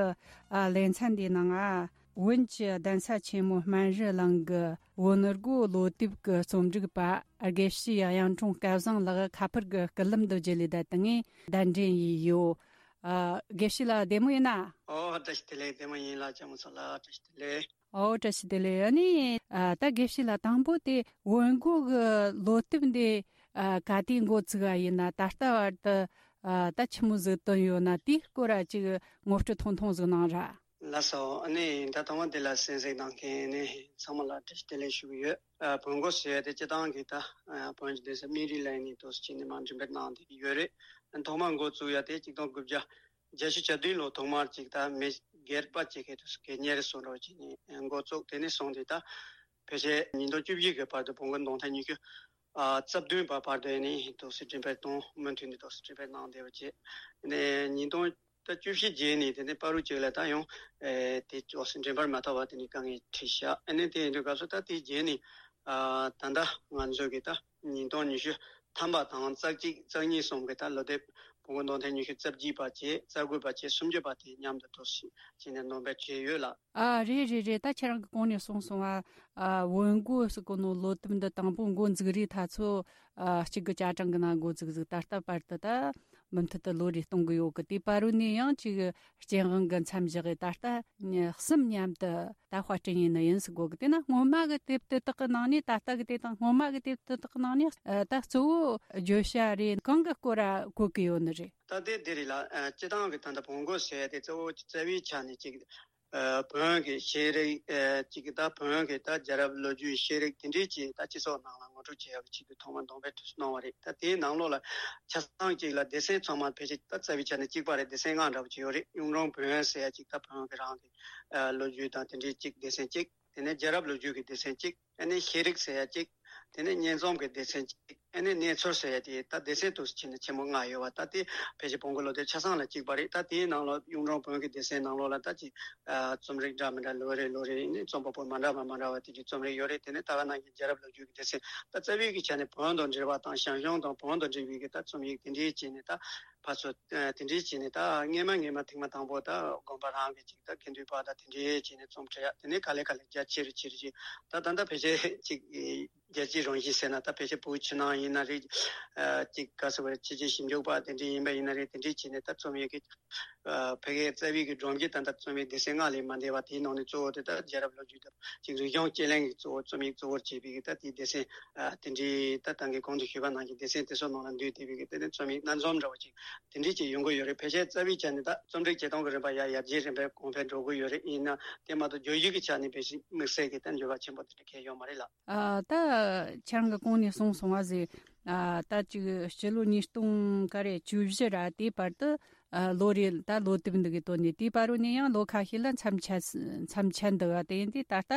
ཨ་ལེ་ཚན་འདིའི་ནང་ང་བོན་གྱི་གདན་ས་ཆེན་མོ་སྨན་རི་གླིང་གི་བོན་སྒོ་ལོ་དེབ་ཀྱི་རྩོམ་སྒྲིག་པ་དགེ་བཤེས་གཡུང་དྲུང་སྐལ་བཟང་ལགས་ཁ་པར་གྱི་སྐུད་ལམ་དུ་བརྒྱུད་ལས་བསྡད་དེ་ངས་གདན་འདྲེན་ཡས་ཡོད། ཨ། དགེ་བཤེས་ལགས་བདེ་མོ་ཡིན་ན། ཨོ། བཀྲ་ཤིས་བདེ་ལེགས། བདེ་མོ་ཡིན་ལགས། ལྕགས་མོ་མཚོ་ལགས། བཀྲ་ཤིས་བདེ་ལེགས། ཨོ། བཀྲ་ཤིས་བདེ་ལེགས། ཨ་ནི། ཨ། ད་དགེ་བཤེས་ལགས་དང་པོ་དེ་བོན་སྒོ་གི་ལོ་དེབ་འདི། ཨ། ག་དུས་འགོ་བཙུགས་པ་ཡིན་ན། ད་ལྟ་བར་དུ། ཨ། ད་ཆི་མོ་ཟིག་བཏོན་ཡོད་ན། དེའི་སྐོར་ཅིག་ངོ་སྤྲོད་ཐུང་ཐུང་ཟིག་གནང་ར། ལགས་སོ། ཨ་ནི་ད་ཐོག་མ་དེ་ལ་གསན་གཟིགས་གནང་མཁན་ནི་ཚང་མ་ལ་བཀྲ་ཤིས་བདེ་ལེགས་ཞུ་གི་ཡོད། ཨ། བོན་སྒོ་ཟེར་ཡ་དེ་སྤྱིར་བཏང་གི་ད། ཨ། བོན་གྱི་གདན་ས་སྨན་རི་གླིང་ནས་འདུག་སེ་བྱས་ནས་མར་འགྲེམས་སྤེལ་གནང་བསྡད་ཀྱི་ཡོད་རེད། ཐོག་མར་འགོ་བཙུགས་ཡ་དེ་ཆིག་སྟོང་དགུ་བརྒྱ་བརྒྱད་ཅུ་གྱ་བདུན་ལོ་ཐོག་མར་ཅིག་ད་མི་སྒེར་པ་ཅིག་གིས་དུས་སུ་གད་སྙིགས་རེ་བཟོ་འདྲ་བྱས་ནས་འགོ་བཙུགས། དེ་ནས་བཟུང་སྟེ་ད་ཕལ་ཆེར་ཉིས་སྟོང་བཅུ་བཞི་གི་བར་དུ་བོན་སྒོ་འདོན་ཐེངས་ཉི་ཤུ་རྩ་བདུན་པ་བར་དུ་ཡིན་ནའི་འདུག་སེ་འགྲེམས་སྤེལ་གཏོང་། མུ་མཐུད་ནས་འདུག་སེ་འགྲེམས་སྤེལ་གནང་བསྡད་པ་བྱས། ནས་ཉིས་སྟོང་ད་བཅུ་བཞི་རྗེས་ནས་དེ་ནས་བར་དུ་ཅིག་ལ་ད་ཡང་ཨེ་དེ་འདུག་སེ་འགྲེམས་སྤེལ་མ་ཐུབ་པ་དེ་ནས་དཀའ་ངལ་འཕྲད་ཤག་ཨ་ནི་དེ་ཡིན་དུས་སྐབས་སུ་ད་དེའི་རྗེས་ནས། ཨ། ད་ལྟ་ང་ཚོ་གི་ད་ཉིས་སྟོང་ཉི་ཤུ་ཐམ་པ་དང་རྩ་གཅིག་རྩ་གཉིས་གསུམ་གི་ད་ལོ་དེབ་བོན་སྒོ་འདོན་ཐེངས་ཉི་ཤུ་རྩ་གཅིག་པ་བྱས། རྩ་དགུ་པ་བྱས། སུམ་ཅུ་པ་དེ་མཉམ་དུ་འདུག་སེ་བྱས་ནས་འདོན་སྤེལ་བྱས་ཡོད་ལགས། ཨ། རེད་རེད་རེད། ད་ཁྱེད་རང་གིས་གོང་ནས་གསུངས་སོང་ཨ། ཨ། བོན་སྒོ་ཟེར་གོ་ནོ་ལོ་དེབ་འདི་དང་པོ་འགོ་འཛུགས་རིང་ད་ཚོ། ཨ། གཅིག་གི་ཆ་གྲངས་གི་ནང་འགོ་འཛུགས་ཟིག་ད་ལྟ་བར་དུ་ད་མུ་མཐུད་དུ་ལོ་རེ་གཏོང་གི་ཡོད་གི། དེ་བར་དུ་ནས་ཡང་ཅིག་སྤྱན་དབང་གི་མཚམས་བཞག་གི་ད་ལྟ་གསུམ་མཉམ་དུ་ད་དཔར་སྐྲུན་ཡས་ནི་ཡིན་ཟེར་གོ་གི། དེ་ན་སྔོན་མ་གི་དེབ་དེ་དག་གི་ནང་ནས། ད་ལྟ་གི་དེ་དང་སྔོན་མ་གི་དེབ་དེ་དག་གི་ནང་ནས། ཨ། ད་གཙོ་བོ་བརྗོད་བྱ་རེ་གང་གི་སྐོར་ར་བཀོད་གི་ཡོད་ནི་རེད། ད་དེ་དེ་རེད་ལགས། ཨ། སྤྱིར་བཏང་གི་ད་ལྟ་བོན་སྒོ་ཟེར་ཡ་དེ་གཙོ་བོ་རྩ་བའི་ཆ་ནས་ཅིག་ཨ། བོན་གྱི་ཤེས་རིག་ཨ། ཅིག་ད་བོན་གྱི་ད་རྒྱལ་རབས་ལོ་རྒྱུས་ཤེས་རིག་དེ་འདྲའི་ཅིག་ད་སྤྱི་ཚོགས་ནང་ལ་ངོ་སྤྲོད་བྱེད་ཡག་གི་ཆེད་དུ་ཐོག་མར་འདོན་སྤེལ་དུས་སུ་གནང་བ་རེད། ད་དེའི་ནང་ལོགས་ལ་ཆ་ཚང་གཅིག་ལ་སྡེ་ཚན་ཚང་མ་ཕལ་ཆེར་ད་རྩ་བའི་ཆ་ནས་གཅིག་པ་རེད། སྡེ་ཚན་ལྔ་འདྲ་པོ་ཅིག་ཡོད་རེད། གཡུང་དྲུང་བོན་ཟེར་ཡ་ཅིག་ད་བོན་གྱི་རང་གི་ཨ། ལོ་རྒྱུས་དང་དེ་འདྲའི་ཅིག་སྡེ་ཚན་གཅིག་དེ་ནས་རྒྱལ་རབས་ལོ་རྒྱུས་ཀྱི་སྡེ་ཚན་གཅིག་ཨ་ནི་ཤེས་རིག་ཟེར་ཡ་གཅིག་དེ་ནས་སྙན་རྩོམ་གྱི་སྡེ་ཚན་གཅིག་ཨ་ནི་གནས་ཚུལ་ཟེར་ཡ་དེ་ད་སྡེ་ཚན་དུ་ཕྱེ་ན་ཆེན་མོ་ལྔ་ཡོད་པ། ད་དེ་ཕལ་ཆེར་བོན་སྒོ་ལོ་དེབ་ཆ་ཚང་ལ་གཅིག་པ་རེད། ད་དེའི་ནང་ལ་གཡུང་དྲུང་བོན་གྱི་སྡེ་ཚན་ནང་ལོགས་ལ་ད་ཅིག་ཨ། རྩོམ་རིག་འདྲ་མི་འདྲ་ལོ་རེ་ལོ་རེ་ནས་རྩོམ་པ་པོ་མ་འདྲ་བ་མ་འདྲ་བ་དེ་འདྲའི་རྩོམ་རིག་ཡོད་རེད། དེ་ནས་ད་ག་ནང་བཞིན་རྒྱལ་རབས་ལོ་རྒྱུས་ཀྱི་སྡེ་ཚན། ད་རྩ་བའི་གི་ཆ་ནས་བོན་དང་འབྲེལ་བ་དང་ཞང་ཞུང་དང་བོན་དང་འབྲེལ་བའི་གི་ད་རྩོམ་ཡིག་དེ་འདྲའི་བྱས་ནས། ད་ཕར་ཚུར་ཨ། དེ་འདྲའི་བྱས་ནས། ད་སྔས་མ་སྔས་མ་ཐེངས་མ་དང་པོ་ད་དགོན་པ་རང་གི་ཅིག་ད་དགེ་འདུན་པ་དང་དེ་འདྲའི་བྱས་ནས་རྩོམ་འབྲི་ཡ། དེ་ནས་ག་ལེ་ག་ལེ་རྒྱ་ཆེ་རུ་ཆེ་རུ་ཆེ། ད་ད་ལྟ་ཕལ་ཆེར་ཅིག་རྒྱལ་སྤྱིའི་རང་བཞིན་ཟེར་ན། ད་ཕལ་ཆེར་བོད་ཕྱི་ནང་ཡིན་ན་རེད། ཨ། ཅིག་ག་ཟེར་བ་རེད། ཕྱི་རྒྱལ་ཞིབ་འཇུག་པ་དེ་འདྲ་ཡིན་པ་ཡིན་ན་རེད། དེ་འདྲ་བྱས་ནས་ད་རྩོམ་ཡིག་གི་ཨ། ཕ་གིའི་རྩ་བའི་གི་སྒྲོམ་གྱི་ད་ལྟ་རྩོམ་ཡིག་སྡེ་ཚན་ལྔ་ལས་མ་འདས་པ། དེའི་ནང་ནས་གཙོ་བོ་དེ་ད་རྒྱལ་རབས་ལོ་རྒྱུས་དང་ཅིག་རིག་གཞུང་དཔྱད་གླེང་གི་གཙོ་བོ་རྩོམ་ཡིག་གཙོ་བོར་བྱས་པའི་གི་ད་དེའི་སྡེ་ཚན། ཨ། དེ་འདྲའི་ད་ད་གིན་གོང་དུ་ཞུས་པ་ནང་བཞིན་སྡེ་ཚན་དེ་ཚོ་ནང་ལ་འདུས་བསྡད་པའི་གི་དེ་ནས་རྩོམ་ཡིག་སྣ་འཛོམས་འདྲ་བོ་ཅིག་དེ་འདྲའི་ཅིག་ཡོང་གི་ཡོད་རེད། ཕལ་ཆེར་རྩ་བའི་ཆ་ནས་ད་རྩོམ་རིག་བྱེད་སྟངས་ཀྱི་རིམ་པ་ཡར་ཡར་རྒྱས་རིམ་པས་གོང་འཕེལ་འགྲོ་གི་ཡོད་རེད། ཡིན་ན་དེ་མ་གཏོགས་བརྗོད་གཞི་གི་ཆ་ནས་ཕལ་ཆེར་དམིགས་བསལ་གྱི་ད་འགྱུར་བ་ཆེན་པོ་དེ་འདྲ་གང་ཡང་ཡོད་མ་རེད་ལགས། ཨ། ད་ཁྱེད་རང་གིས་གོང་ནས་གསུངས་སོང་བ་ཟེར། ཨ། ད་ཅིག་ཕྱི་ལོ་ཉིས་སྟོང་ག་རེ་བཅུ་བཞི་ར་དེའི་བར་དུ། ཨ་ལོ་རེ་ད་ལོ་དེབ་འདི་གི་དོན་ནས་དེའི་བར་རུ་ནས་ཡང་ལོ་ཁ་ཤས་ལ་མཚམས་ཆད་མཚམས་ཆད་འདུག་བ། དེ་ཡིན་དུས་ད་ལྟ་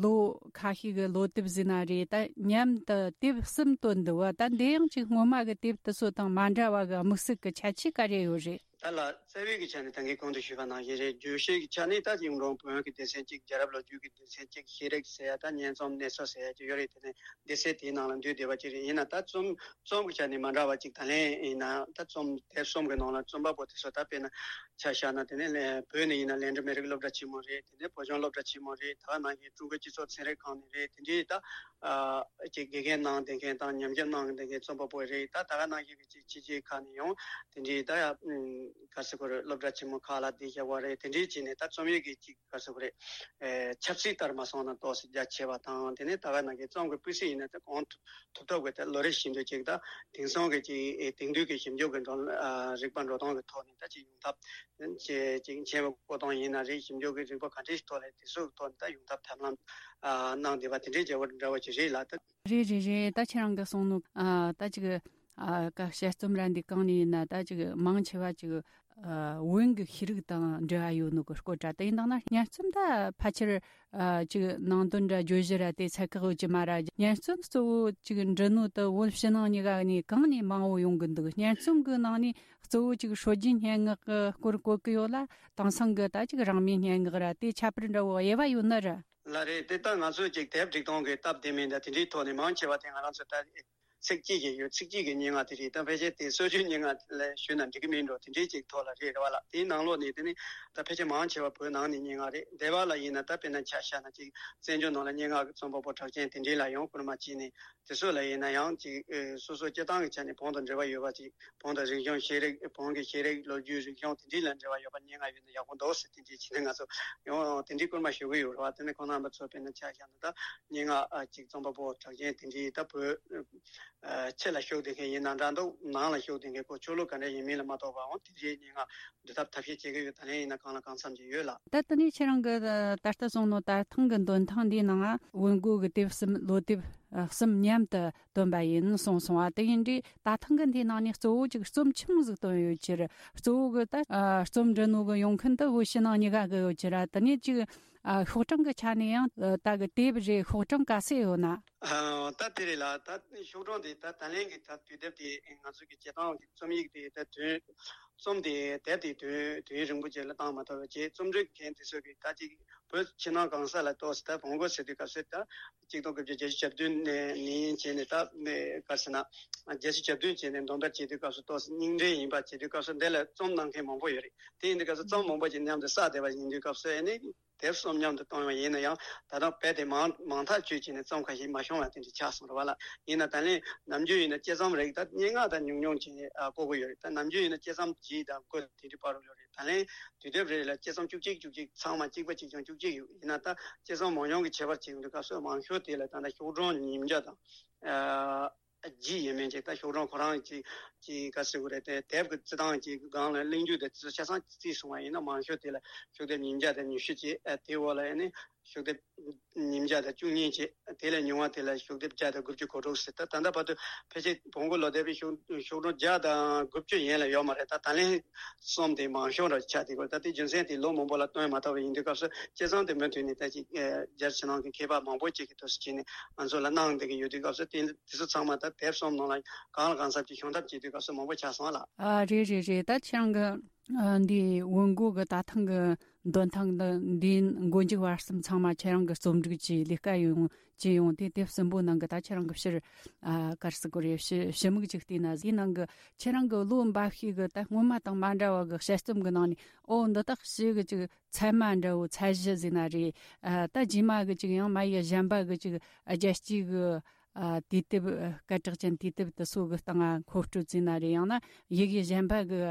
ལོ་ཁ་ཤས་ཀྱི་ལོ་དེབ་ཟིན་ན་རེད། ད་མཉམ་དུ་དེབ་གསུམ་བཏོན་འདུག་བ། ད་འདི་ཡང་ཅིག་སྔོན་མ་གི་དེབ་དེ་ཚོ་དང་མ་འདྲ་བ་གི་དམིགས་བསལ་གྱི་ཁྱད་ཆོས་ག་རེ་ཡོད་རེད། ད་ལ་རྩ་བའི་གི་ཆ་ནས་ད་གིན་གོང་དུ་ཞུས་པ་ནང་བཞིན་རེད། བརྗོད་བྱའི་གི་ཆ་ནས་ད་གཞུང་དྲང་བོན་གྱི་སྡེ་ཚན་གཅིག་རྒྱལ་རབས་ལོ་རྒྱུས་ཀྱི་སྡེ་ཚན་གཅིག་ཤེས་རིག་ཟེར་ཡ་ད་སྙན་རྩོམ་གནས་ཚུལ་ཟེར་ཡ་གཅིག་ཡོད་རེད། དེ་ནས་སྡེ་ཚན་དེའི་ནང་ལ་འདུས་བསྡད་པ་གཅིག་རེད། ཡིན་ན་ད་རྩོམ་རྩོམ་གྱི་ཆ་ནས་མ་འདྲ་བ་གཅིག་ད་ལན་ཡིན་ན་ད་རྩོམ་དེབ་གསུམ་གྱི་ནང་ལ་རྩོམ་པ་པོ་དེ་ཚོ་ད་དཔེར་ན་ཆ་བཞག་ན་དེ་ནས་ལན་བོད་ནས་ཡིན་ན་ལན་གྲུ་མི་རིགས་སློབ་གྲྭ་ཆེན་མོ་རེད། དེ་ནས་བོད་ལྗོངས་སློབ་གྲྭ་ཆེན་མོ་རེད། ད་ག་ནང་བཞིན་ཀྲུང་གོའི་སྤྱི་ཚོགས་ཚན་རིག་ཁང་ནས་རེད། དེ་འདྲའི་ད་ཨ་ཅིག་དགེ་རྒན་གནང་བསྡད་མཁན་དང་ཉམས་ཞིབ་གནང་བསྡད་མཁན་རྩོམ་པ་པོ་རེད། ད་ད་ག་ནང་བཞིན་གྱི་ཅིག་ཕྱི་རྒྱལ་ཁག་ནས་ཡང་དེ་འདྲའི་ད་ཡ་ག་ཟེར་དགོས་རེད། སློབ་གྲྭ་ཆེན་མོ་ཁག་ལ་བསྡད་བཞག་པ་རེད། དེ་འདྲའི་བྱས་ནས་ད་རྩོམ་ཡིག་གི་ཅིག་ག་ཟེར་དགོས་རེད། ཨེ་ཆབ་སྲིད་ལྟར་མ་སོང་ན་ཏོག་ཙམ་རྒྱ་ཆེ་བ་དང་། དེ་ནས་ད་ག་ནང་བཞིན་རྩོམ་གྱི་སྤུས་ཚད་ཡིན་ན་ད་གང་ཐུབ་ཐུབ་ཐབས་ཀྱི་ད་ལོ་རེ་བཞིན་དུ་ཅིག་ད་དེང་སང་གི་ཅིག་ཨེ་དེང་དུས་ཀྱི་ཞིབ་འཇུག་གི་འགྲོ་ཨ་རིག་པ་འགྲོ་སྟངས་ཀྱི་ཐོག་ནས་ད་ཅིག་ཡོང་ཐབས་ཅིག་ཅིག་མཁྱེན་པ་བསྐོ་སྟངས་ཡིན་ན་རེད། ཞིབ་འཇུག་གི་རིག་པ་ག་འདྲའི་ཐོག་ལ་དེ་ཚོའི་ཐོག་ནས་ད་ཡོང་ཐབས་ཐབས་ལམ་ཨ་གནང་བསྡད་པ་དེ་འདྲའི་བྱ་བ་འདྲ་བ་ཅིག་རེད་ལ། ད་རེད་རེད་རེད། ད་ཁྱེད་རང་གིས་གསུངས་ནོ་ཨ་ད་ཅིག་ཨ་ག་དཔྱད་རྩོམ་ར་འདི་གང་ནས་ཡིན་ན་ད་ཅིག་མང་ཆེ་བ་ཅིག་ཨ་བོན་གྱི་ཤེས་རིག་དང་འབྲེལ་བ་ཡོད་ནོ་གི་སྐོར་འདྲ། དེ་ཡིན་དང་ན་སྙན་རྩོམ་ད་ཕལ་ཆེར་ཨ་ཅིག་ནང་དོན་འདྲ་བརྗོད་གཞི་ར་དེ་ཚད་བཀག་ཡོད་ཀྱི་མ་ར། སྙན་རྩོམ་གཙོ་བོ་ཅིག་འབྲི་ནོ་དེ་བོད་ཕྱི་ནང་གཉིས་ཀ་ནས་གང་ནས་མང་བོ་ཡོང་གི་འདུག་སྙན་རྩོམ་གི་ནང་ནས་གཙོ་བོ་ཅིག་སྲོལ་རྒྱུན་སྙན་ངག་གི་སྐོར་བཀོད་གི་ཡོད་ལ། དེང་སང་གི་ད་ཅིག་རང་མོས་སྙན་ངག་ར་དེ་ཁྱད་པར་འདྲ་བོ་དབྱེ་བ་ཡོད་ནི་ར། ལ་རེད། དེ་ད་ང་ཚོས་ཅིག་དེབ་སྒྲིག་སྟངས་ཀྱི་སྟབས་བདེ་མིན་ད་དེ་འདྲའི་ཐོག་ནས་མང་ཆེ་བ་དེ་ང་རང་ཚོ་ད་ཚིག་གཅིག་གི་ཡོད། ཚིག་གཅིག་གི་སྙན་ངག་དེ་རེད། ད་ཕལ་ཆེར་དེ་སྲོལ་རྒྱུན་སྙན་ངག་ལ་ཞུས་ན་འགྲིག་གི་མིན་འགྲོ། དེ་འདྲའི་ཅིག་ཐོག་ལ་རེད་རེད་བ་ལ། དེའི་ནང་ལོགས་ནས་དེ་ནི་ད་ཕལ་ཆེར་མང་ཆེ་བ་བོད་ནང་ནས་སྙན་ངག་རེད། སྡེ་བ་ལ་ཡིན་ན་ད་དཔེར་ན་ཆ་བཞག་ན་ཅིག་བཙན་བྱོལ་ནང་ལ་སྙན་ངག་གི་རྩོམ་པ་པོ་གྲགས་ཅན་དེ་འདྲའི་ལ་ཡང་བསྐུར་མ་བྱས་ནས། དེ་ཚོ་ལ་ཡིན་ན་ཡང་ཅིག་ཨེ་སོ་སོ་སྤྱིར་བཏང་གི་ཆ་ནས་བོན་དང་འབྲེལ་བ་ཡོད་པ་ཅིག་བོན་དང་རིག་གཞུང་ཤེས་རིག་བོན་གྱི་ཤེས་རིག་ལོ་རྒྱུས་རིག་གཞུང་དེ་འདྲའི་ལ་འབྲེལ་བ་ཡོད་པ་སྙན་ངག་ཡོད་ན་ཡག་པོ་འདུག་ཟེར་དེ་འདྲའི་བྱས་ནས་ང་ཚོ་ཡང་དེ་འདྲའི་བསྐུར་མ་ཞུ་གི་ཡོད་རེད་བ། དེ་ནས་ཁོང་རྣམ་པ་ཚོ་དཔེར་ན་ཆ་བཞག་ན་ད་སྙན་ངག་ཨ་ཅིག་རྩོམ་པ་པོ་གྲགས་ཅན་དེ་འདྲའི་ད་བོད་ཨ་ཕྱི་ལ་བཞུགས་བསྡད་མཁན་ཡིན་ན་འདྲ་འདུག་ནང་ལ་བཞུགས་བསྡད་མཁན་ཁོ་ཆོས་ལུགས་ག་འདྲ་ཡིན་མིན་ལ་མ་གཏོགས་པའང་དེ་འདྲའི་སྙན་ངག་འབྲི་ཐབས་ཐབས་ཤེས་བྱེད་ཀྱི་ཡོད། ད་ལན་ཡིན་ན་གང་ལ་གང་འཚམ་ཅིག་ཡོད་ལ། ད་ལྟ་ནི་ཁྱེད་རང་གི་ད་ལྟ་གསུངས་ནོ་ད་ཐེངས་གི་འདོན་ཐེངས་འདིའི་ནང་ང་བོན་སྒོ་གི་དེབ་གསུམ་ལོ་དེབ་ཨ་གསུམ་མཉམ་དུ་བཏོན་པ་ཡིན་གསུངས་སོང་བ། དེ་ཡིན་དུས་ད་ཐེངས་གི་འདིའི་ནང་ནས་གཙོ་བོ་ཅིག་རྩོམ་ཆུང་ཟིག་བཏོན་ཡོད་ཕྱིར། གཙོ་བོ་གི་ད་ཨ་རྩོམ་འབྲི་ནོ་གི་ཡོང་མཁན་དུ་བོད་ཕྱི་ནང་གཉིས་ཀ་གི་ཡོད་ཕྱིར། དེ་ནས་ཅིག་ཨ་ཤོག་གྲངས་གི་ཆ་ནས་ཡང་ད་གི་དེབ་རེ་ཤོག་གྲངས་ག་ཚད་ཡོད་ན། ཨ་ད་དེ་རེད་ལ། ད་ཤོག་གྲངས་དེ་ད་ད་ལན་གི་ད་དུས་དེབ་དེ་ང་ཚོ་གི་བྱེད་སྟངས་ཀྱི་རྩོམ་ཡིག་དེ་ད་དུས་རྩོམ་དེ་དེབ་དེ་དུས་དུས་རིང་པོ་ཅིག་ལ་བཏང་མ་ཐུབ་པ་བྱས། རྩོམ་འབྲི་མཁན་དེ་ཚོ་གིས་ད་ཅིག་བོད་ཕྱི་ནང་གང་ས་ལ་ཏོག་ཙམ་ད་བོན་སྒོ་ཟེར་དུས་སྐབས་སུ་ད་གཅིག་སྟོང་དགུ་བརྒྱ་བརྒྱད་ཅུ་གྱ་བདུན་ནས་ནས་བྱས་ནས་ད་ག་ཟེར་ན་བརྒྱད་ཅུ་གྱ་བདུན་བྱས་ནས་འདོན་པར་བྱེད་དུས་སྐབས་སུ་ཏོག་ཙམ་རྙིང་འབྲེལ་ཡིན་པ་བྱེད་དུས་སྐབས་སུ་འདི་ལ་རྩོམ་གནང་མཁན་མང་པོ་ཡོད་རེད། དེ་ཡིན་དུས་སྐབས་སུ་རྩོམ་མང་པོ་ཅིག་མཉམ་དུ་བསགས་བསྡད་པ་ཡིན་དུས་སྐབས་སུ་ཨ་ནི། དེབ་གསུམ་མཉམ་དུ་བཏང་བ་ཡིན་ན་ཡང་ད་དུང་རྦད་དེ་མང་མང་ཐག་ཆོད་ཀྱི་ནས་རྩོམ་ཁ་ཤས་མ་བྱུང་བ་དེ་འདྲ་ཆགས་སོང་རེད་བ་ལ། ཡིན་ན་ད་ལན་ནམ་རྒྱུན་ཡིན་ན་དཔྱད་རྩོམ་རིགས་ད་སྙན་ངག་ད་ཉུང་ཉུང་ཅིག་ཨ་བཀོད་ཀྱི་ཡོད་རེད། ད་ནམ་རྒྱུན་ཡིན་ན་དཔྱད་རྩོམ་བཞི་དང་དགུ་དེ་འདྲ་བར་རུ་ཡོད་རེད། ད་ལན་དུས་དེབ་རེ་ལ་དཔྱད་རྩོམ་བཅུ་གཅིག་བཅུ་གཅིག་ཚང་མ་གཅིག་པ་གཅིག་རྐྱང་བཅུ་གཅིག་ཡོད། ཡིན་ན་ད་དཔྱད་རྩོམ་མང་ཉུང་གི་ཁྱད་པར་བྱེད་ཡོང་དུས་སྐབས་སུ་མང་ཤོས་དེ་ལ་ད་ལྟ་ཤོག་གྲངས་ཉིས་བརྒྱ་དང་ཨ། རྒྱུ་ཡིན་མིན་ཅིག་ད་ཤོག་གྲངས་ཁོ་རང་ཅིག་ཅིག་ག་ཟེར་དགོས་རེད། དེ་དེབ་ཀྱི་རྩི་སྟངས་ཀྱི་སྒང་ལ་གླེང་རྒྱུ་དེ་ཆ་ཚང་རྩིས་སོང་བ་ཡིན་ན་མང་ཤོས་དེ་ལ་ཤོག་དེབ་ཉིས་བརྒྱ་དང་ཉི་ཤུ་ཅིག་ཨ་དེའི་འོག་ལ་ཨ་ནི་ཤོག་དེབ་ཉིས་བརྒྱ་དང་བཅུ་གཉིས་ཅིག་དེ་ལས་ཉུང་བ་དེ་ལ་ཤོག་དེབ་བརྒྱ་དང་དགུ་བཅུ་གོ་དྲུག་ཟེར། ད་ད་ལྟ་བར་དུ་ཕལ་ཆེར་བོན་སྒོ་ལོ་དེབ་ཀྱི་ཤོག་ཤོག་གྲངས་བརྒྱ་དང་དགུ་བཅུ་ཡན་ལ་ཡོད་མ་རེད། ད་ད་ལན་གསུམ་དེ་མང་ཤོས་ར་ཆགས་དེ་གོ་ད་དེ་རྒྱུ་མཚན་དེ་ལོ་མང་པོ་ལ་བཏོན་མ་ཐུབ་པ་ཡིན་དུས་སྐབས་སུ་དཔྱད་རྩོམ་དེ་མུ་མཐུད་ནས་ད་ཅིག་ཨ་རྒྱ་ཕྱི་ནང་གི་མཁས་པ་མང་པོ་ཅིག་གིས་འདུག་སེ་བྱས་ནས་ང་ཚོ་ལ་གནང་བསྡད་ཀྱི་ཡོད་དུས་སྐབས་སུ་དེ་དེ་ཚོ་ཚང་མ་ད་དེབ་གསུམ་ནང་ལ་གང་ལ་གང་འཚམ་ཅིག་ཤོང་ཐབས་བྱེད་དུས་སྐབས་སུ་མང་པོ་ཆགས་སོང་ལ། ཨ་རེད་རེད་རེད། ད་ཁྱེད་རང་གི་ཨ་འདི་བོན་སྒོ་གི་ད་ཐེངས་གི་འདོན་ཐེངས་འདི་འདིའི་མགོ་མཇུག་བར་གསུམ་ཚང་མ་ཁྱེད་རང་གི་རྩོམ་སྒྲིག་གྱིས་ལས་ཀ་ཡོང་བྱས་ཡོང་དུས་དེབ་གསུམ་པོ་ནང་གི་ད་ཁྱེད་རང་གི་ཕྱིར་ཨ་ག་རེ་ཟེར་དགོས་རེད། ཞི་ཞི་མིག་ཅིག་བལྟས་ན། དེའི་ནང་གི་ཁྱེད་རང་གི་ལོ་འབའ་ཞིག་གི་ད་སྔོན་མ་དང་མ་འདྲ་བ་གི་དཔྱད་རྩོམ་གི་ནང་ནས་ཨོ་འདི་དག་ཞིག་གི་ཅིག་ཚད་མ་འདྲ་བོ་ཚད་གཞི་ཟེར་ན་རེད། ཨ་ད་རྗེས་མ་གི་ཅིག་ཡང་མ་ཡི་གཞན་པ་གི་ཅིག་རྒྱལ་སྤྱིའི་གི་ཨ་དུས་དེབ་ཨ་སྐད་གྲགས་ཅན་དུས་དེབ་དེ་ཚོ་གི་སྟེང་ང་མཁོ་སྤྲོད་ཟེར་ན་རེད། ཡང་ན་ཡི་གེ་གཞན་པ་གི་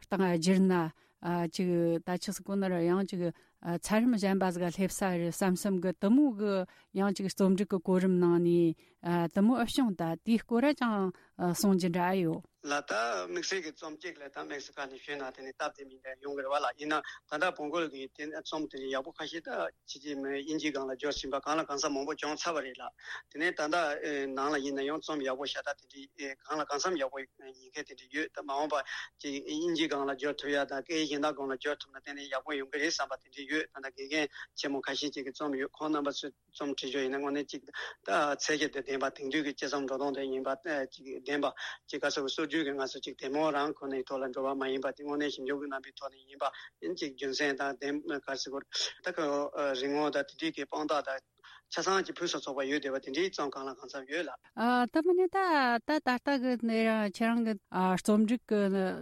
སྟེང་ང་བསྒྱུར་ན་ཨ་ཅིག་ད་ཆི་ཟིག་གོ་ན་ར་ཡང་ཅིག་ཨ་ཚད་རིམ་གཞན་པ་ཟིག་ག་སླེབས་ས་རེད་བསམ་བསམ་གི་དེ་མོ་གི་ཡང་ཅིག་རྩོམ་སྒྲིག་གི་གོ་རིམ་ནང་ནས་ཨ་དེ་མོ་ཨེ་བྱུང་། ད་དེའི་སྐོར་ར་ཅང་ ཨ་གསུང་རྒྱུ་འདྲ་ཡོད། ལ་ད་དམིགས་བསལ་གྱི་རྩོམ་གཅིག་ལ་ད་དམིགས་བསལ་ཁ་ནས་ཞུས་ན་དེ་ནི་སྟབས་བདེ་མིན་འདྲ་ཡོང་གི་རེད་བ་ལ། ཡིན་ན་ད་ལྟ་བོང་གོ་གི་དེ་རྩོམ་དེ་ཡག་པོ་ཁ་ཤས་ད་ཕྱི་རྒྱལ་མི་དབྱིན་ཇིའི་སྒང་ལ་འབྱོར་ཟིན་པ་གང་ལ་གང་འཚམ་མང་པོ་བྱུང་ཚར་བ་རེད་ལ། དེ་ནས་ད་ལྟ་ཨེ་ནང་ལ་ཡིན་ན་ཡང་རྩོམ་ཡག་པོ་ཤ་སྟག་དེ་འདྲའི་ཨེ་གང་ལ་གང་འཚམ་ཡག་པོ་ཡིན་མཁན་དེ་འདྲ་ཡོད། ད་མ་འོངས་པ་ཅིག་དབྱིན་ཇིའི་སྒང་ལ་འབྱོར་ཐུབ་ཡ་དང་སྐད་ཡིག་གཞན་དག་སྒང་ལ་འབྱོར་ཐུབ་ན་དེ་ནས་ཡག་པོ་ཡོང་གི་རེད་བསམ་པ་དེ་འདྲ་ཡོད། ད་ལྟ་དགེ་རྒན་ཆེན་མོ་ཁ་ཤས་ཅིག་གི་རྩོམ་ཡོད། ཁོང་རྣམ་པ་ཚོས་རྩོམ་བྲིས་ཕྱོགས་ཡིན་ན་དངོས་གནས་ཅིག་ད་ཚད་གཞི་དེ་ལྡན་པ་དེང་དུས་ཀྱི་སྤྱི་ཚོགས་འགྲོ་སྟངས་དེ་ཡིན་པ་ཅིག་ལྡན་པ་ཅིག་ག་ཟེར་བ་སྲོལ་རྒྱུན་གྱི་ང་ཚོ་ཅིག་དེ་མོ་རང་ཁོ་ནའི་ཐོག་ལ་འགྲོ་བ་མ་ཡིན་པ་དེ་དངོས་གནས་ཞིབ་འཇུག་གི་རྣམ་པའི་ཐོག་ནས་ཡིན་པ་ཡིན་ཅིག་རྒྱུ་མཚན་དང་ལྡན་ག་ཟེར་དགོས་རེད། ད་ཁོ་རིག་ངོ་དང་དེ་འདྲའི་གི་དཔང་རྟགས་དང་ཆ་ཚང་གི་ཕུན་སུམ་ཚོགས་པ་ཡོད་བསྡད་པ་དེ་འདྲའི་རྩོམ་གང་ལ་གང་འཚམ་ཡོད་ལ། ཨ་ད་མིན་ནི་ད་ད་ད་ལྟ་གི་ནི་རང་ཁྱེད་རང་གི་ཨ་རྩོམ་རིག་གི་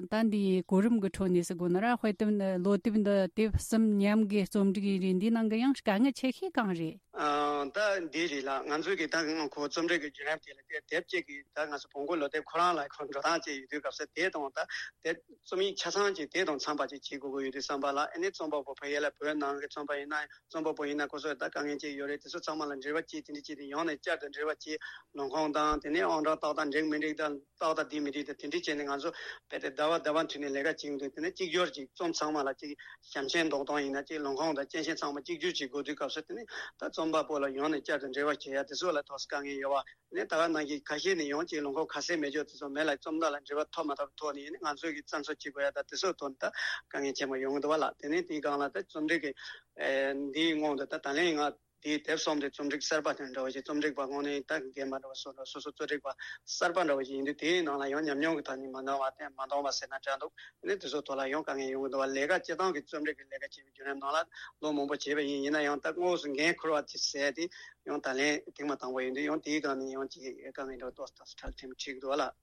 ད་འདིའི་གོ་རིམ་གི་ཁྲོད་ནས་ཟེར་དགོས་ན་ར། དཔེ་དེབ་འདི་ལོ་དེབ་འདི་དེབ་གསུམ་མཉམ་གི་རྩོམ་རིག་ཡིན་རེད། འདི་ནང་གི་ཡང་དཀའ་ངལ་ཆེ་ཤོས་གང་རེད། ཨ་ད་འདི་རེད་ལ། ང་ཚོས་གི་ད་ང་ཁོ་རྩོམ་རིག་གི་བརྒྱུད་རིམ་དེ་ལ་དེ་དེབ་གཅིག་གི་ད་ང་ཚོ་བོང་གོ་ལོ་དེབ་ཁོ་རང་ལ་ཁོ་འགྲོ་སྟངས་ཅིག་ཡོད་དུས་སྐབས་སུ་དེ་དང་ད་དེ་རྩོམ་ཡིག་ཆ་ཚང་ཅིག་དེ་དང་འཚམ་པ་ཅིག་བྱེད་དགོས་ཀྱི་ཡོད་དུས་བསམ་པ་ལ། ཨ་ནི་རྩོམ་པ་པོ་ཕ་ཡུལ་ལ་བོད་ནང་གི་རྩོམ་པ་ཡིན་ན་རྩོམ་པ་པོ་ཡིན་ན་ཁོ་ཚོས་ད་དཀའ་ངལ་ཅིག་ཡོད་རེད། དེ་ཚོ་ཚང་མ་ལ་འབྲེལ་བ་བྱེད། དེ་འདྲ་བྱེད་དེ་ཡང་ནས་བསྐྱར་དུ་འབྲེལ་བ་བྱེད། ལུང་ཁུངས་དང་དེ་ནས་ཨང་གྲངས་ཏག་ཏག་འགྲིག་མི་འགྲིག་དང་ཏག་ཏག་འདི་མི་འགྲིག་དང་དེ་འདྲ་བྱས་ནས་ང་ཚོ་རྦད་དེ་ཟླ་བ་ཟླ་བ་མཐུད་ནས་ལས་ཀ་བྱེད་ཀྱི་འདུག་དེ་ནས་གཅིག་གྱུར་ཅིག་རྩོམ་ཚང་མ་ལ་ཅིག་ཞབས་མཆན་འདོགས་སྟངས་ཡིན་ན་ཅིག་ལུང་ཁུངས་དང་སྐྱེས་ཆེན་ཚང་མ་གཅིག་གྱུར་ཅིག་དགོས་དུས་སྐབས་སུ་དེ་ནས་ད་རྩོམ་པ་པོ་ལ་ཡང་ནས་བསྐྱར་དུ་འབྲེལ་བ་བྱེད་ཡ་དེ་ཚོ་ལ་ཐོག་དཀའ་ངལ་ཡོད་བ། ནས་ད་ག་ནང་བཞིན་ཁ་ཤས་ནས་ཡང་ཅིག་ལུང་ཁུངས་ཁ་གསལ་མེད་ཅོག་དེ་ཚོ་མེད་ལ། རྩོམ་བདག་ལ་འབྲེལ་བ་ཐོབ་མ་ཐོབ་ཐོག་ནས་ནི་ང་ཚོས་ཀྱི་བཙན་འཚོལ་བྱེད་དགོས་ཡ་ད་དེ་ཚོའི་ཐོག་ནས་ད་དཀའ་ངལ་ཆེན་པོ་ཡོང་གི་འདུག་བ་ལ། དེ་ནས་དེའི་སྒང་ལ་ད་རྩོམ་རིག་གི་ཨེ་འདིའི་སྔོན་དུ་ད་ད་ལན་ང་དེའི་དེབ་གསུམ་དེ་རྩོམ་རིག་གསར་པ་དང་འདྲ་བ་ཞིག་རྩོམ་རིག་པ་དངོས་གནས་ད་རྒན་པ་འདྲ་བ་སོ་འདྲ་སོ་སོ་རྩོམ་རིག་པ་གསར་པ་འདྲ་བ་ཞིག་ཡིན་དུས་དེའི་ནང་ལ་ཡང་ཉམས་མྱོང་གི་ཐོག་ནས་མ་འདང་བ་དེ་མ་འདང་བ་ཟེར་ན་འདྲ་འདུག་དེ་ནས་དེ་ཚོའི་ཐོག་ལ་ཡང་དཀའ་ངལ་ཡོང་གི་འདུག་བ། ལས་ཀ་སྤྱིར་བཏང་གི་རྩོམ་རིག་གི་ལས་ཀ་བྱེད་པའི་བརྒྱུད་རིམ་ནང་ལ་ལོ་མང་པོ་བྱས་པ་ཡིན། ཡིན་ན་ཡང་ད་དངོས་སུ་འགན་འཁུར་བ་ཅིག་ཟེར་ཏེ་ཡང་ད་ལན་ཐེངས་མ་དང་པོ་ཡིན་དུས་ཡང་དེའི་སྒང་ནས་ཡང་ཅིག་དཀའ་ངལ་འདྲ་ཏོག་ཙམ་འཕྲད་ཐེངས་འཁྲིད་འདུག་བ་ལ།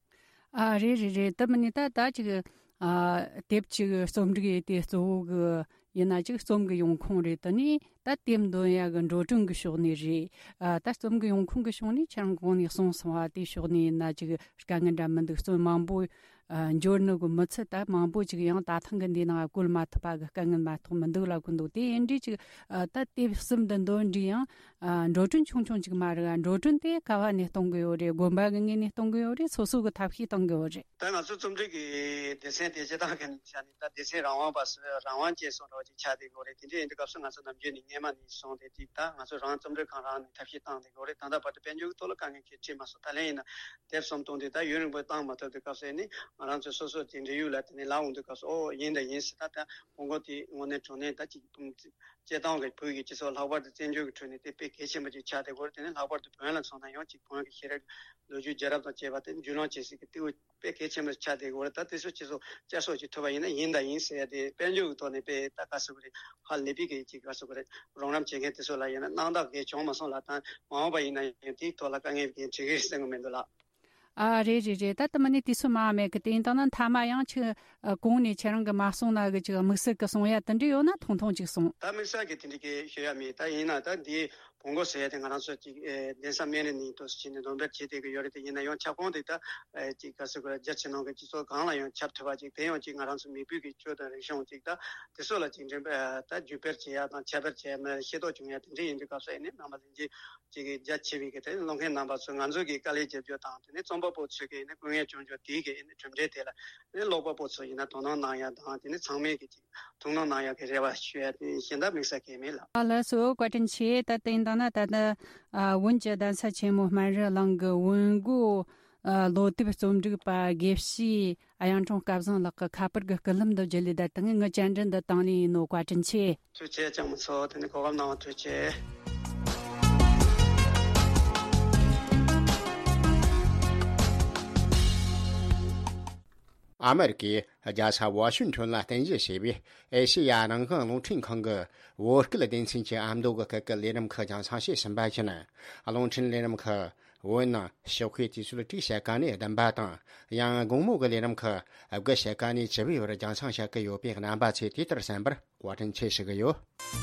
ཨ་རེད་རེད་རེད། དེ་མིན་ནི་ད་ད་ཅིག་ཨ་དེབ་ཅིག་རྩོམ་སྒྲིག་ཡས་དེ་གཙོ་བོ་གི་ཡིན་ན་ཅིག་རྩོམ་གི་ཡོང་ཁུངས་རེད། དེ་ནས་ད་དེབ་འདོན་ཡ་གི་འགྲོ་གྲོན་གི་ཕྱོགས་ནས་རེད། ཨ་ད་རྩོམ་གི་ཡོང་ཁུངས་གི་ཕྱོགས་ནས་ཁྱེད་རང་གོང་ནས་གསུངས་སོང་བ་དེ་ཕྱོགས་ནས་ཡིན་ན་ཅིག་དཀའ་ངལ་འདྲ་མི་འདུག་རྩོམ་མང་པོ་ཨ་འབྱོར་ནི་གི་མི་ཚད་ད་མང་པོ་ཅིག་ཡང་ད་ཐེངས་གི་འདི་ནང་བཀོལ་མ་ཐུབ་པ་གི་དཀའ་ངལ་མ་གཏོགས་མི་འདུག་ལབ་གི་འདུག་དེ་ཡིན་དུས་ཅིག་ཨ་ད་དེབ་གསུམ་འདི་འདོན་དུས་ཡང་ཨ་འགྲོ་གྲོན་ཆུང་ཆུང་ཅིག་མ་རེད། འགྲོ་གྲོན་དེ་ག་བ་ནས་གཏོང་གི་ཡོད་རེད། དགོན་པ་གི་ངོས་ནས་གཏོང་གི་ཡོད་རེད། སོ་སོ་གི་ཐབས་ཤེས་གཏོང་གི་ཡོད་རེད། ད་ང་ཚོ་རྩོམ་རིག་གི་སྡེ་ཚན་དེ་སྤྱིར་བཏང་གི་ནས་བྱས་ནས་ད་སྡེ་ཚན་རང་དབང་བ་སུ་རང་དབང་ཅན་སོགས་འདྲ་བ་ཅིག་ཆགས་བསྡད་ཡོད་རེད། དེ་འདྲ་ཡིན་དུས་སྐབས་སུ་ང་ཚོ་ནམ་རྒྱུན་ནས་སྔས་མ་ནས་བཟུང་སྟེ་ཅིག་ད་ང་ཚོ་རང་རྩོམ་རིག་ཁང་རང་ནས་ཐབས་ཤེས་བཏང་བསྡད་ཡོད་རེད། ད་ལྟ་བར་དུ་དཔལ་འབྱོར་གྱི་ཐོག་ལ་དཀའ་ངལ་གང་ཡང་འཕྲད་མ་སོང་། ད་ལན་ཡིན་ན་དེབ་གསུམ་བཏོན་དུས་ད་ཡུན་རིང་པོ་བཏང་མ་ཐུབ་དུས་སྐབས་སུ་ནི་ང་རང་ཚོའི་སོ་སོ་དེ་འབྲེལ་ཡོད་ལ་དེ་ནས་ལབ་འོང་དུས་སྐབས་སུ་ཨོ་ཡིན་ད་ཡིན་ཟེར། ད་ད་ཕྲུ་གུ་དེ་དངོས་གནས་དྲང་གནས་ད་ཅིག་སྤྱིར་བཏང་གི་བོད་ཀྱི་སྤྱི་ཚོགས་ལྷག་པར་དུ་བཙན་བྱོལ་གྱི་ཁྲོད་ནས་དེ་དཔེ་གལ་ཆེན་པོ་ཅིག་ཆགས་བསྡད་ཡོད་རེད། དེ་ནས་ལྷག་པར་དུ་བོན་ལ་མཚོན་ན་ཡང་ཅིག་བོན་གྱི་ཤེས་རབ་ལོ་རྒྱུས་རྒྱལ་རབས་དང་བཅས་པ་དེ་རྒྱུས་ལོན་བྱེད་སའི་གི་ལྟེ་བ་དཔེ་གལ་ཆེན་པོ་ཆགས་བསྡད་ཡོད་རེད། ད་དེ་ཚོ་སྤྱི་ཚོགས་བསྐྱར་གསོ་ཅིག་ཐུབ་པ་ཡིན་ན་ཡིན་ད་ཡིན་ཟེར་ཡ་དེ་དཔལ་འབྱོར་གྱི་ཐོག་ནས་དཔེ་ད་ག་ཟེར་དགོས་རེད། ཧ་ལས་པའི་གི་ཅིག་ག་ཟེར་དགོས་རེད། རོགས་རམ་བྱེད་མཁན་དེ་ཚོ་ལ་ཡིན་ན་སྣང་དག་གས་བྱུང་མ་སོང་ལ། ད་མ་འོངས་པ་ཡིན་ན་ཡང་དེའི་ཐོག་ལ་དཀའ་ངལ་གང་འཕྲད་ཀྱི་རེད་བསམ་གི་མི་འདུག་ལགས། ཨ་རེད་རེད་རེད། ད་ལྟ་མ་ནི་དུས་ཚོད་མང་མེད་གི། དེ་ཡིན་དང་ན་མཐའ་མ་ཡང་ཁྱེད་ཨ་གོང་ནས་ཁྱེད་རང་གི་མ་གསུངས་ན་གི་ཅིག་དམིགས་བསལ་གི་གསུང་ཡ་དེ་འདྲ་ཡོད་ན་ཐུང་ཐུང་ཅིག་གསུང་། ད་དམིགས་བསལ་གི་དེ་འདྲ་གི་ཞུ་ཡ་མེད། ད་ཡིན་ན་ད་འདི་བོང་གོ་ཟེར་ཡ་དེ་ང་རང་ཚོ་ཅིག་ཨེ་གདན་ས་སྨན་རི་ནས་འདུག་སེ་བྱས་ནས་འདོན་སྤེལ་བྱེད་བསྡད་གི་ཡོད་རེད། དེ་ཡིན་ན་ཡང་ཁྱབ་ཁོངས་དེ་ད་ཨེ་ཅིག་ག་ཟེར་དགོས་རེད། རྒྱ་ཆེ་ནང་གི་སྤྱི་ཚོགས་གང་ལ་ཡང་ཁྱབ་ཐུབ་པ་ཅིག་དེ་ཡང་ཅིག་ང་རང་ཚོ་མི་བོད་ཀྱི་ཆོས་དང་རིག་གཞུང་ཅིག་ད་དེ་ཚོ་ལ་ཅིག་འགྲེམས་སྤེལ་ད་བརྒྱུད་སྤེལ་བྱེད་ཡ་དང་ཁྱབ་སྤེལ་བྱེད་ཡ་མ་ཤེས་རྟོགས་བྱུང་ཡ་དེ་འདྲ་ཡིན་དུས་སྐབས་སུ་ཨེ་ནི་རྣམ་པ་ལྷན་རྒྱས་ཅིག་གི་རྒྱ་ཆེ་བའི་གི་དེ་ཀློག་མཁན་རྣམ་པ་ཚོས་ང་ཚོ་གི་དཀའ་ལས་རྒྱབ་སྐྱོར་དང་དེ་ནས་རྩོམ་པ་པོ་ཚོས་གི་ནི་སྐུ་ངལ་བྱུང་རྒྱུ་དེའི་གི་ནི་གྲུབ་འབྲས་དེ་ལ་ནི་ཀློག་པ་པོ་ཚོ་ཡིན་ན་དོ་སྣང་གནང་ཡ་དང་དེ་ནི་ཚང་མས་གི་ཅིག་ཐུགས་སྣང་གནང་ཡ་གི་རེ་བ་ཞུ་ཡ་དེ་གཞན་དག་དམིགས་བསལ་གང་ཡང་མེད་ལགས། ཨ་ལགས་སོ། བཀའ་དྲིན་ཆེ། ད་དེ་ཡིན་དང་ན་ད་ལྟ་ཨ་བོན་གྱི་གདན་ས་ཆེན་མོ་སྨན་རི་གླིང་གི་བོན་སྒོ་ཨ་ལོ་དེབ་རྩོམ་སྒྲིག་པ་དགེ་བཤེས་གཡུང་དྲུང་སྐལ་བཟང་ལགས་ཀྱི་ཁ་པར་གྱི་སྐུད་ལམ་དུ་བརྒྱུད་ལས་ད་དེ་ངས་བཅར་འདྲི་འདི་བཏང་ལེ་ཡིན་ནོ། བཀའ་དྲིན་ཆེ། ཐུགས་རྗེ་ཆེ་ལྕམ་མོ་མཚོ། དེ་ནི་གོ་སྐབས་གནང་བ་ཐུགས་རྗེ་ཆེ། ཨ་མེ་རི་ཀའི་རྒྱལ་ས་ཝ་ཤིང་ཊོན་ལ་རྟེན་གཞི་བྱས་པའི་ཨེ་ཤེ་ཡ་རང་དབང་རླུང་འཕྲིན་ཁང་གི་བོད་སྐད་སྡེ་ཚན་གྱི་ཨ་མདོ་གི་སྐད་ཀྱི་ལས་རིམ་ཁག་རྒྱང་སྲིང་བྱས་ཟིན་པ་བཞིན། རླུང་འཕྲིན་ལས་རིམ་ཁག་བོད་ནང་ཞོགས་ཀའི་དུས་ཚོད་དྲུག་ཕྱེད་ཀ་ནས་བདུན་པ་དང་། ཡང་དགོང་མོ་གི་ལས་རིམ་ཁག་དགུ་ཕྱེད་ཀ་ནས་བཅུ་པའི་བར་རྒྱང་སྲིང་བྱེད་ཀྱི་ཡོད་པས། རྣམ་པ་ཚོས་དེ་ལྟར་གསན་པར་བཀའ་དྲིན་ཆེ་ཞུ་གི་ཡོད།